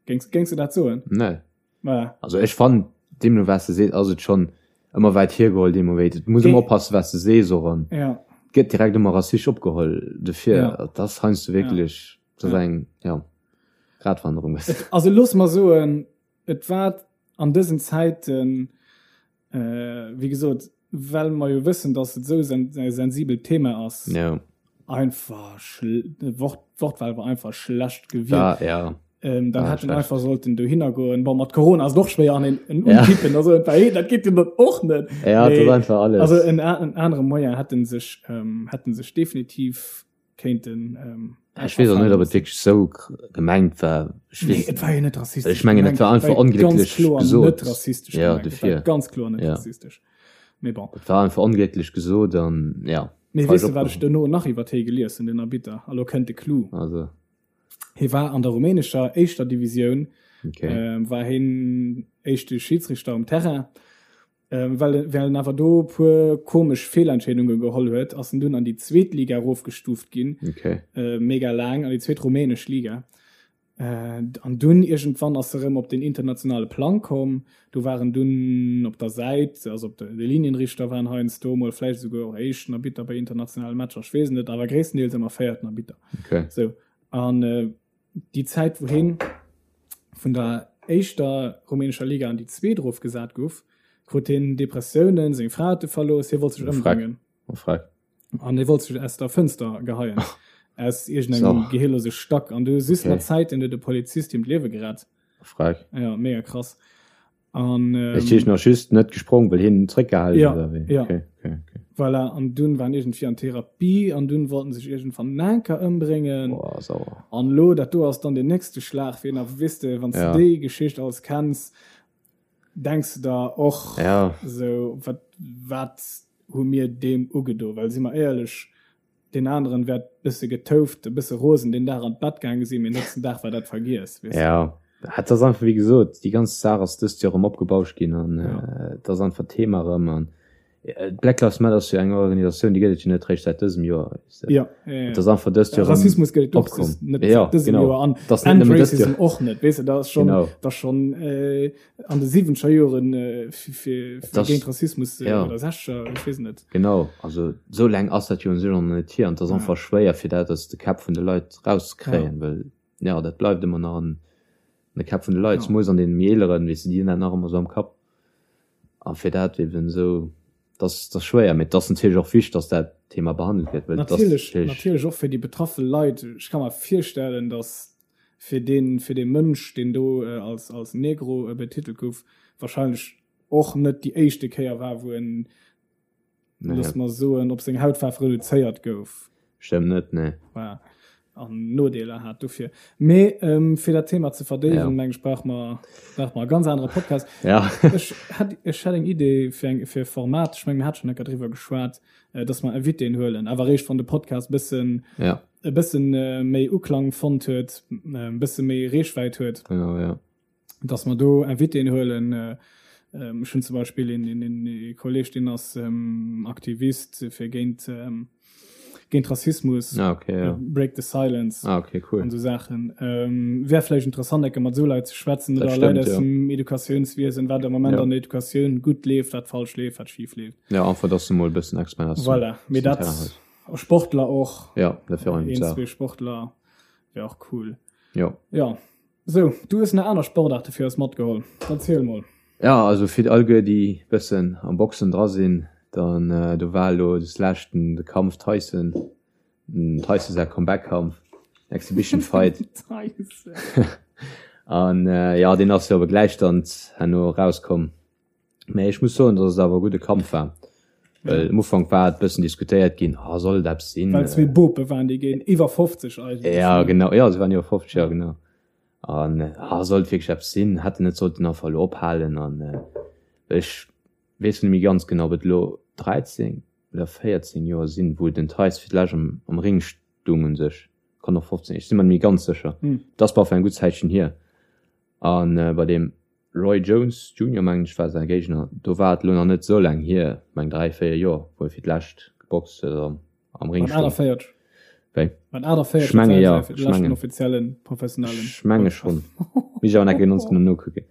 Géings, géings du dat soen? Nee. Voilà. Also ech fannen, deemno wat s de sees, ass et schonn ëmmer wäit hiergeholl deemno wéi. Et muss ëmmer oppassen, wat s de sees och an Ja. gëtt direkt ëmmer rassistesch opgeholl. Dofir, Ja. dat ass heiansdo wierklech, dat ass eng, ja. Gratwanderung. Et, also looss mer soen, et war an dësen Zäiten, äh, wéi gesot, well mer jo wëssen, datt et esou sen e sensibelt Thema ass, ja. einfach Wort, d'Wortwahl war einfach schlecht gewielt. Da, ja. Ähm, dann ah, hätten einfach sollten dohinner goen. Bon, mat Corona ass et och schwéier an en, en ja. unkippen, also, hey, dat geet jo dann och net. Ja, Nee, dat ass einfach alles. Also en, en anere Moyen hätten sech, ähm, hätten sech definitiv kéinten ähm, Ech weess och net, ob et wierklech esou gemengt war. Ech Nee, weess, et war jo net rassistesch ech mengen, et war einfach War ganz onglécklech kloer gesot. Net rassistesch Ja, gemengt. Et war dofir. ganz kloer net Ja. rassistesch. Mee bon. Et war einfach onglécklech gesot an ja. Mee falsch weess de, wat ech opgeholl. dono nach iwwer hie gelies hunn, den Arbitter? A lo kënnt de Clou. Also, Hie war an der rumänescher éischter Divisioun, okay. ähm, war hien éischte Schidsrichter um Terrain. Ähm, well, well en awer do e puer komesch Feelentscheedunge geholl huet, ass en dunn an déi zweet Liga erofgestuuft ginn. Okay. Äh, mega laang, an déi zweet rumänesch Liga. Äh, an dunn iergendwann ass e rëm op den internationale Plang komm. Do war en dunn op der Säit, also op de, de Linienrichter waren heiansdo mol, vläicht esouguer och éischten Arbitter bei internationale Matcher, ech weess et net, awer gréisstendeels ëmmer véierten Arbitter. Okay. Sou, an äh, déi Zäit wou heen vun der éischter rumänescher Liga an déi zweet erofgesat gouf, krut heen Depressiounen, seng Fra huet e verlooss, hie wollt sech ëmbréngen. Oh freck. An e wollt sech aus der Fënster geheien. Aus iergendengem so. gehirlose Stack. An du just okay. mat Zäiten huet de Polizist him d'Liewe gerett. Freck. Ja, mega krass. An, ähm, ich nach just net gesprong, well hien zréckgehalen ja, oder wéi? Ja. Okay, okay, okay. Voilà, an dunn waren irgendwie an Therapie an dunn wollten sech irgendwann Nanker ëmbréngen. Boah, sauer. An lo, dat do ass dann den nächste Schlag, wien a weess de, wann ja. du déi Geschicht alles kenns, denks du der och ja. so wat, wat hu mir deem ugedo? Well si mer éierlech, deen aneren wäert bësse getouft, e bësse rosen deen Dag an d'Bett gaange sinn, mee nächsten Dag war dat vergiess, weess de. Ja, et ass einfach wéi gesot, déi ganz Saach ass dëst Joer erëm opgebauscht ginn an et ass einfach Thema erëm an Black Lives Matter ass jo eng Organisatioun, déi gëtt et jo net réischt säit dësem Joer, weess de. Ja, ja, ja. Et ass einfach dëst Joer erëm Rassismus gëtt et och opkomm. net Ja, säit dësem genau. Joer an Et ass net and nëmmen dëst Joer. Racism och net, weess de, dat ass schonn, Genau. dat ass schonn an de siwwenzeger Joren fir, fir, Et ass, géint Rassismus ja. oder sechzeger, ech weess et net. Genau, also esou laang ass dat jo un sech och nach net hier an et ass Ja. einfach schwéier fir dat aus de Käpp vun de Leit Ja. rauszekréien, well ja dat bleift ëmmer nach an de Käpp vun de Leit, Ja. zemools an deene méi eeleren, weess de, déi hunn dat nach ëmmer esou am Kapp a fir dat eben esou, dat ass, dat ass schwéier, mee et ass natierlech och wichteg, datt dat Thema behandelt gëtt, well et ass Natierlech, natierlech. natierlech och fir déi betraffe Leit. Ech ka mer virstellen, datt fir deen, fir dee Mënsch, deen do als, als Negro betitelt gouf, wahrscheinlech och net déi éischte Kéier war, wou en, Nee. looss mer soen, op seng Hautfaarf reduzéiert gouf. Stëmmt net, nee. Voilà. An Nodeeler hat dofir. Mee ähm, fir dat Thema ze verdéiwen, Ja. meng ech, brauche mer, brauche mer e ganz anere Podcast. Ja. Ech hätt, ech hätt eng Idee fir eng, fir e Format, ech meng, mir hat schonn eng Kéier driwwer geschwat, äh, dass mer Invitéen huelen, awer eréischt wann de Podcast e bëssen, Ja. e bëssen méi Uklang fonnt huet, e bësse méi Reechwäit huet. Genau, ja. Dass mer do Invitéen huelen. Ech hunn zum Beispill een, een, een ee Kolleg, deen ass Aktivist fir géint, géint Rassismus. Ah, okay, ja. Break the Silence. Ah, okay, cool. An esou Saachen. Wär vläicht interessant, enke mat esou Leit ze schwätzen Dat oder Leit stëmmt, aus ja. dem Educatiounswiesen, wat am Moment Ja. an der Educatioun gutt leeft, wat falsch leeft, wat schif leeft. Ja, einfach, dass du mol e bëssen Expert aus dem, Voilà. aus Mee dem dat, Terrain hues. Sportler och. Ja, dat wär och eng gutt Een, Saach. zwee Sportler wär och cool. Jo. Ja. Sou, du hues nach aner Sportaarte fir eis matgeholl. Erziel mol. Ja, also fir alleguer déi bëssen am Boxen dra sinn, dann do war elo des leschten de Kampf Tyson, den Tyson säi Comeback-Kampf, Exhibition Fight. Tyson. An jo, deen ass jo awer gläich dann herno erauskomm. Mä ech muss soen, datt et awer e gudde Kampf war. Well am Ufank war et bëssen diskutéiert ginn, ah, soll et eppes sinn? Well zwee Bope waren, déi géint iwwer 50 eigentlech. Ja, genau, ja, se waren iwwer 50, ja, genau. An ah, soll et wierklech eppes sinn? Hätt en net sollten einfach elo ophalen? An ech weess net méi ganz genau, ob et elo 13 oder 14 Joer sinn, wou den Theis fir d'lescht am, am Ring stung un sech. Kann och 15, ech si mer net méi ganz sécher. Et ass baf eng gutt Zäitchen hier. A bei deem Roy Jones Junior, mengen ech, war säi Géigner. Do war et elo nach net esou laang hier, meng 3, 4 Joer, wou e fir d'lescht geboxt huet oder am Ring Mat stoung. 48. Wéi? Mat 48 Ech menge jo, fir ech de leschten mengen. offiziellen professionellen. Ech menge schonn. Misst ech awer nach ganz genau nokucken.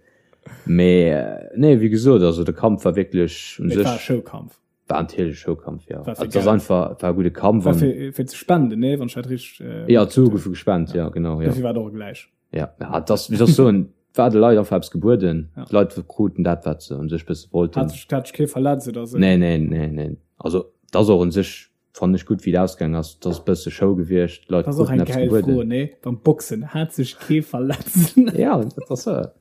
Mee nee, wéi gesot, also de Kampf war wierklech un Mee et war e sech. Showkampf. War natierlech e Showkampf, jo. War fir Also et ass Geld. einfach, war e gudde Kampf War an. fir, fir ze spenden, nee, wann ech dat richteg. Äh, Jo, d'Sue goufe gespent, jo, genau, jo. Dofir war et och gläich. Ja, ja, et ass, wéi soll ech soen, et war de Leit einfach eppes gebueden. Ja. D'Leit kruten dat, wat se un sech bësse wollten. Hat sech, hat sech kee verletzt oder esou? Nee, nee, nee, nee. Also, et ass och un sech, fannen ech gutt, wéi et ausgaangen ass. Et ass e bësse Show gewiescht, d'Leit Dat ass och kruten eng eppes gäil Fro, gebueden. nee? Beim Boxen, hat sech kee verletzt? Ja, dat ass se.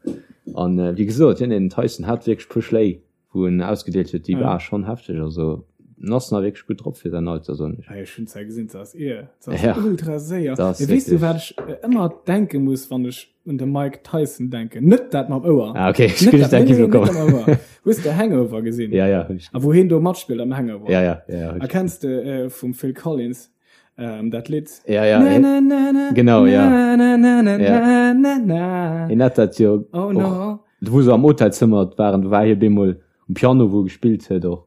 An wéi gesot, jo, nee, den Tyson hat wierklech e puer Schléi wou en ausgedeelt huet, déi war schonn hefteg. Also en ass nach wierklech gutt drop fir säin Alter, soen ech. Hey, ech hunn zwar gesinn, se ass ier, se ass Ja, ultra séier. dat ass Mee weess du, wat wierklech. ech ëmmer denke muss, wann ech un de Mike Tyson denken? Net dat mam Ouer. Ah, okay, ech Net krut dat, dat nee, nee, gi net bekommen. dat mam Ouer. Hues de Hangover gesinn? Ja, ja, hunn ech. A wou hien do matspillt am Hangover? Ja, ja, ja, ja, hunn A ech. kenns de äh, vum Phil Collins ähm, dat Lidd? Ja, ja, Na, eh, na, na, na, genau, ja. na, na, na, na, Ja. na, na, na. Hien hat dat jo Oh och, no. wou se am Hotelzëmmer waren, do war hie bemol um Piano, wou e gespillt huet och.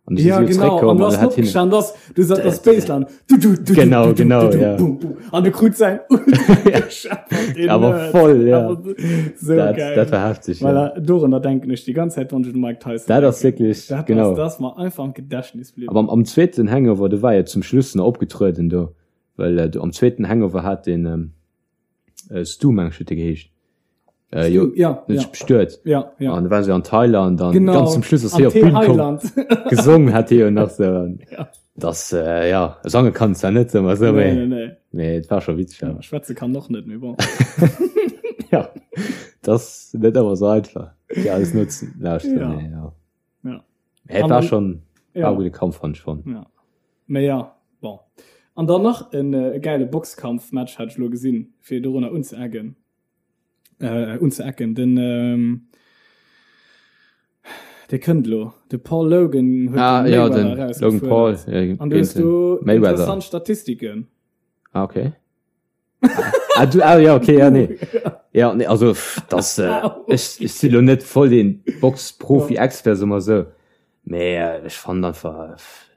An du si Ja, jo genau. An zréckkomm du an hast hat hien. opgestanden, das, du sat das Baseline. Du, du, du, du, Genau, du, du, genau, du, du, ja. bum, bum. An du krut sein ultra gescheppert, den Aber Nerd. voll, ja. Aber so Dat, geil. dat war heftig, ja. Voilà, dorunner denken ech die ganze Zeit, wann ech un Mike Tyson Dat ass denken. wierklech, Dat genau. ass, das ass mer einfach am Gedächtnis bliwwen. Aber am, am zweeten Hangover, do war jo zum Schluss nach opgetrueden do, well äh, do am zweeten Hangover hat den ähm, äh, Stu, meng ech, huet de geheescht. Äh, jo, ja, net ja. bestuet. Ja, ja. An da waren se an Thailand an Genau. ganz zum Schluss ass Am hie op d'Bühn komm. Thailand. Gesongen hat hie jo nach so. An Ja. Das, äh, ja, sange kann zwar net ëmmer so, Nee, mee, nee, nee. mee et war scho witzeg. Ja, Ja. schwätze kann och net, mee bon. ja. Das net ëmmer so einfach, fir alles nutzen lauschteren. Ja. Nee, ja. Ja. Mee et An war dann- schon Ja. war e gudde Kampf fand ich schon. Ja. Mee ja, bon. An dann nach en äh, geile Boxkampfmatch hat ech lo gesinn, fir dorunner unzeeggen. Äh, unzeecken. Den, ähm, dee kënnt lo. De Paul Logan huet Ah, den ja, Mayweather den Logan Paul. erausgefuerdert. Äh, An du hast géint den du Mayweather. interessant Statistiken. Ah, okay. ah, du, ah, ja, okay, ja, nee. Ja, nee, also, pff, das, äh, ich, ich si lo net voll den Box-Profi-Expert, so mal so. Mee, äh, ech fand einfach, äh, pff,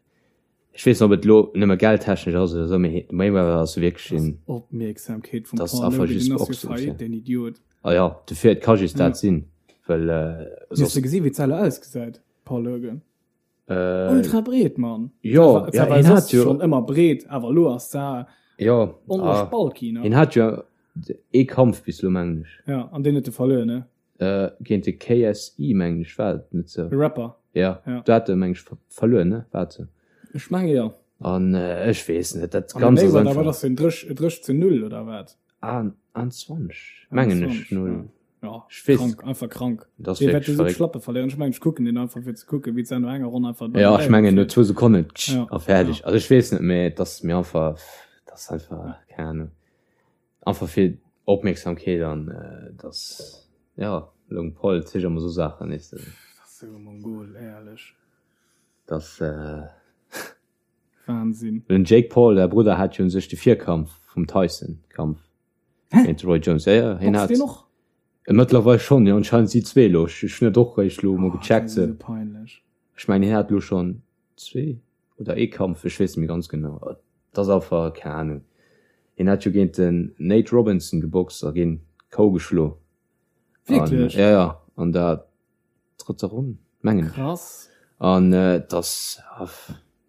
ich weess net, ob et lo nëmme geldtechnesch ass oder so, mee Mayweather ass wierklech Das een, Opmierksamkeet vum das Paul einfach Logan, just den ass jo Boxen, faillite, ja. den Idiot. Ah ja, dofir, et ka just Ja. dat sinn, well, äh, Hues du soss, gesinn, wéi d'Selle ausgesäit, Paul Logan? äh, Ultra breet, Mann. jo, Dat ja, war hien soss hat jo, schon ëmmer breet, awer lo ass da jo, onlech ah, bulky, ne? hien hat jo ee Kampf bis lo, mengen ech. Ja, an deen huet e verluer, ne? Äh, géint de KSI, mengen ech, war et net sou? De Rapper. Ja, Ja. do hat e, mengen ech, ver verluer, ne? War et sou? Ech menge jo. An äh, ech weess net, dat An de Ganzt ass Mayweather, wat einfach. ass deen? Drëch, drëch zu null, oder wat? An, an 20, mengen ech, 21, null. ja. Ja, Ech weess. krank, einfach krank. Dat ass Dee wäert wierklech esou verréckt. d'Schlappe verléieren. Ech mengen, ech kucken deen einfach, fir ze kucken, wéi d'Sendung enger Ronn einfach Ja, ech mengen, no zwou Sekonnen, tsch, Ja, a fäerdeg. ja. Also ech weess net, mee et ass mir einfach, dat ass einfach, keng Ahnung. Einfach fir Opmierksamkeet an dass, ja, Logan Paul zicht emmer sou Saachen, weess de. Dat ass sou e Mongol, éierlech. Dass. Wahnsinn. Den Jake Paul, säi Brudder, hat jo un sech de Virkampf vum Tyson-Kampf géint de Roy Jones. Ja, ja, hien Boxt hat. deen och? Mëttlerweil schonn, jo, anscheinend si zwee elo. Ech hunn dat och réischt elo mol Oh, dat gecheckt. ass esou peinlech. Ech mengen, hien hat elo schonn zwee oder ee Kampf, ech weess net méi ganz genau. Et ass einfach, keng Ahnung. Hien hat jo géint den Nate Robinson geboxt a géint K.O. geschlo. Wierklech? Ja, ja, an der drëtter Ronn, mengen ech. Krass. An et ass,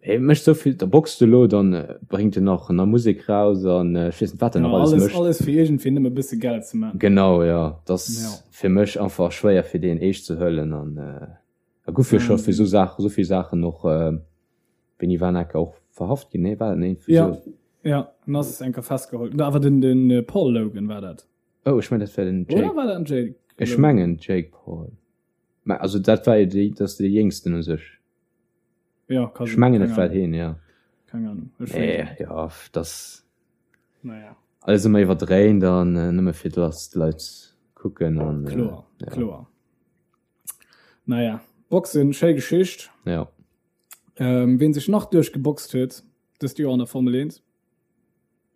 hie mécht esou vill, da boxt elo, dann bréngt en nach nei Musek raus an ech weess net, wat en Ja, nach alles alles, mécht. alles fir iergendwéi nëmme e bësse Geld ze maachen. Genau, jo. Et ass Ja. fir mech einfach schwéier, fir deen eescht ze huelen an A guff jo scho fir sou Saachen, sou vill Saachen och wéini war en enker och verhaft ginn, nee war en Ja, ja, en ass enker festgeholl. Awer den den Paul Logan war dat. Oh ech mengen dat war den Jake. Oder war dat den Jake? Ech mengen Jake Paul. Mä also dat war jo déi, dat ass dee jéngsten u sech. Ja, ka Ech mengen et war heen, ja. Keng Ahnung. Ech Nee, weess et net. ja, dat Naja. alles ëmmer iwwerdréint an nëmme fir dass d'Leit kucken an. Kloer, ja. kloer. Naja, Boxen, schéi Geschicht. Ja. Ähm, ween sech nach duerchgeboxt huet dëst Joer an der Formel 1?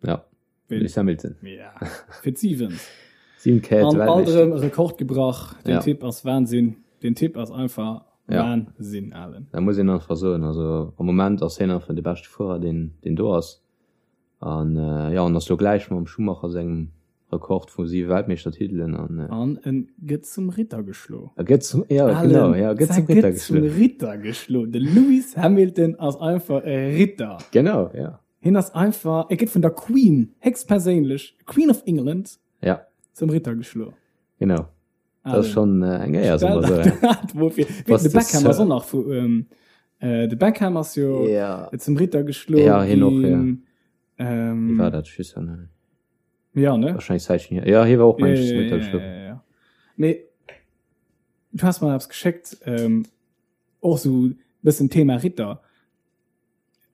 Ja. Ween? Lewis Hamilton. Ja. Fir d'siwent. Siwen Kéier An alt Weltmeeschter. erëm e Rekord gebrach. Den Ja. Typ ass Wahnsinn. Den Typ ass einfach Ja. Wahnsinn, Alen. Da muss een einfach soen, also am Moment ass hien einfach de beschte Fuerer, deen, deen do ass. An äh, ja, an ass lo gläich mam Schumacher sengem Rekord vu siwe Weltmeeschtertitelen an. Äh, an en gëtt zum Ritter geschlo. E gëtt zum, ja, Allen, genau, ja, gëtt zum Ritter gëtt zum geschlo. Ritter geschlo. De Lewis Hamilton ass einfach e Ritter. Genau, ja. Hien ass einfach, e gëtt vun der Queen, héchstperséinlech, Queen of England, Ja. zum Ritter geschlo. Genau. Dat ass schonn äh, eng Éier, soe mer Stell sou. der dat mol vir. Wéi, Was de de Beckham ass Sir. och nach vu, ähm, äh, de Beckham ass jo Ja. zum Ritter geschlo Ja, hien och, ja. ginn. Ähm, Wie war dat? Ich weiß ja nicht. Ja, ne? Wahrscheinlich Zeichen hier. Ja, hier war och Ja, mensch ja, zum ja, Ritter ja, geschlo. ja, ja. Mee du hast mal eppes geschéckt, ähm, och sou bëssen Thema Ritter.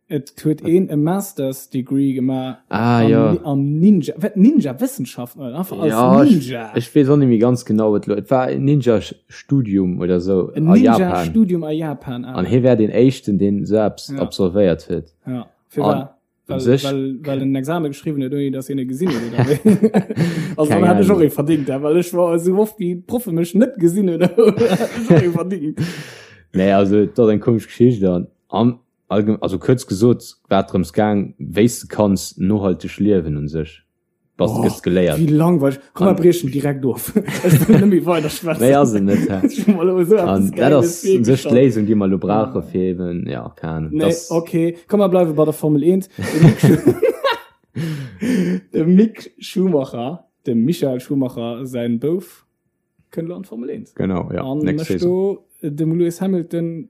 Et huet een e Masters Degree gemaach Ah, am, ja. am Ninja, wat Ninja Wëssenschaften oder einfach als Ja, ich, Ninja. ich wees och nicht méi ganz genau, wat lo. Et war en Ninja-Studium oder so En a Ninja Japan. Studium a Japan. An hie wär den éischten, deen sou eppes Ja. absolvéiert huet. Ja, fir An war well, sech well, well en Examen geschriwwen huet, ouni dass hien e gesinn huet oder wéi. Also Keng dann hat ech och Ahnung. ee verdingt, ja, well ech war esou oft wéi d'Proffe mech net gesinn hunn, hat ech och ee verdingt. Nee, also et ass eng komesch Geschicht an am allgem also kuerz gesot war et drëms gaang, wéi s de kanns nohalteg liewen un sech. Bass Oh, gëss geléiert. wéi langweileg. Komm, mer An briechen direkt of. Ech wëll net méi weider schwätzen. Méi ass et net, hä? Ech hu mer elo esou An eppes dat Gäiles ass un sech virgestallt. d'Léisung, déi mer elo brauche fir eben, ja, keng Ahnung, Nee, dass okay. Komm, mer bleiwe bei der Formel 1. De Mick Schu- De Mick Schumacher, dem Michael Schumacher säin Bouf. Kënnt elo an d'Formel 1. Genau, ja. An mécht do dem Lewis Hamilton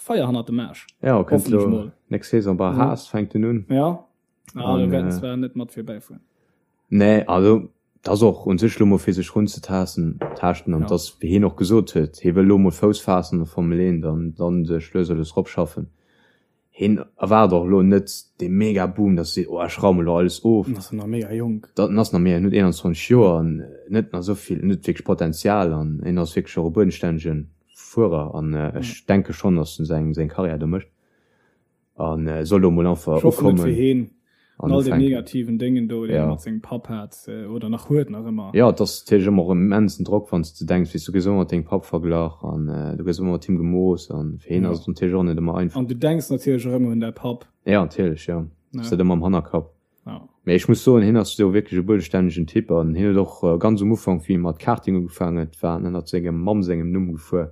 Feier hannert dem Aarsch. Ja, kënnt elo nächst Saison bei Haas fänkt en un. Ja. Ah, do wäert en zwar net mat virbäifueren. Nee, also dat ass och un sech elo mol fir sech runzetaassen, taaschten an dass, wéi hien och gesot huet, hie wëll elo mol Fouss faassen an der Formel 1 an dann sech lues a lues eropschaffen. Hien erwaart och elo net dee mega Boom, dass e seet, oh ech raume elo alles of. En ass nach mega jonk. En ass nach mega, en huet 21 Joer an en huet nach esou vill, en huet wierklech Potenzial an hien ass wierklech och e buedenstännege Fuerer an ech denke schonn, dass en seng Karriär do mécht. An soll do mol einfach Ech hoffen et fir heen an all den negativen Déngen do, déi e mat sengem Papp hat oder nach huet nach ëmmer. Jo, et ass natierlech ëmmer och immensen Drock, wann s de denks, weess, du gëss ëmmer mat dengem Papp verglach an du gëss ëmmer mat him gemooss an fir heen ass et natierlech och net ëmmer einfach. An du denks natierlech och ëmmer un däi Papp. Jo, natierlech, jo, ass dat ëmmer am Hannerkapp. Mee ech muss soen, hien ass jo wierklech e buedestännegen Typ an hien huet och ganz um Ufank, wéi e mat Karting ugefaangen huet, war en ënnert sengem Mamm sengem Numm gefuer.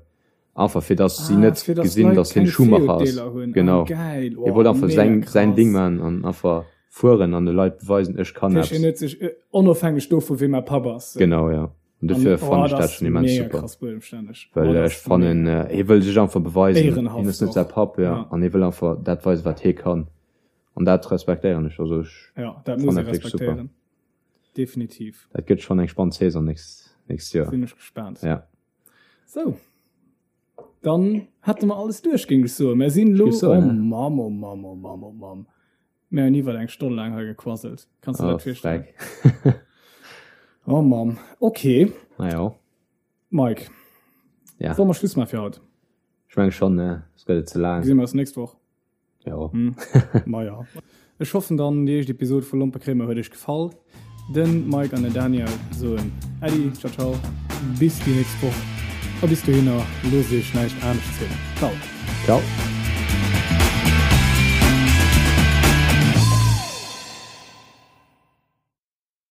Einfach fir dass si net gesinn, dass hien Schumacher ass. Genau. Hie wollt einfach säin, säin Ding maachen an einfach fueren an de Leit beweisen, ech kann eppes. Hien huet sech, onofhängeg dovu wee mäi Papp ass. Genau, jo. An dofir fannen ech dat schonn immens super. Well ech fannen, hie wëll sech einfach beweisen. Hien ass net säi Papp, jo. An hie wëll einfach dat weisen, wat hie kann. An dat respektéieren ech. Also ech fannen dat wierklech super. Definitiv. Dat gëtt schonn eng spannend Saison nächst, nächst Joer. Sinn ech gespaant. Ja. Sou, dann hätte mer alles duerch, géing ech soen. Mer sinn elo, oh Mamm, oh Mamm, oh Mamm, oh Mamm, mer hunn iwwer eng Stonn laang hei gequasselt. Kanns de dat virstellen? Oh Mamm, okay. Na jo. Mike, ja. Solle mer Schluss maache fir haut? Ech menge schonn, ne? Et gëtt et ze laang. Gesi mer eis nächst Woch. Jo. Hm. Maja. Ech hoffen dann, déi éischt Episod vu Lompekréimer huet iech gefall. Den Mike an den Daniel soen Äddi, ciao ciao, bis déi nächst Woch a bis dohinner loosst iech näischt anescht zielen. Ciao. Ciao.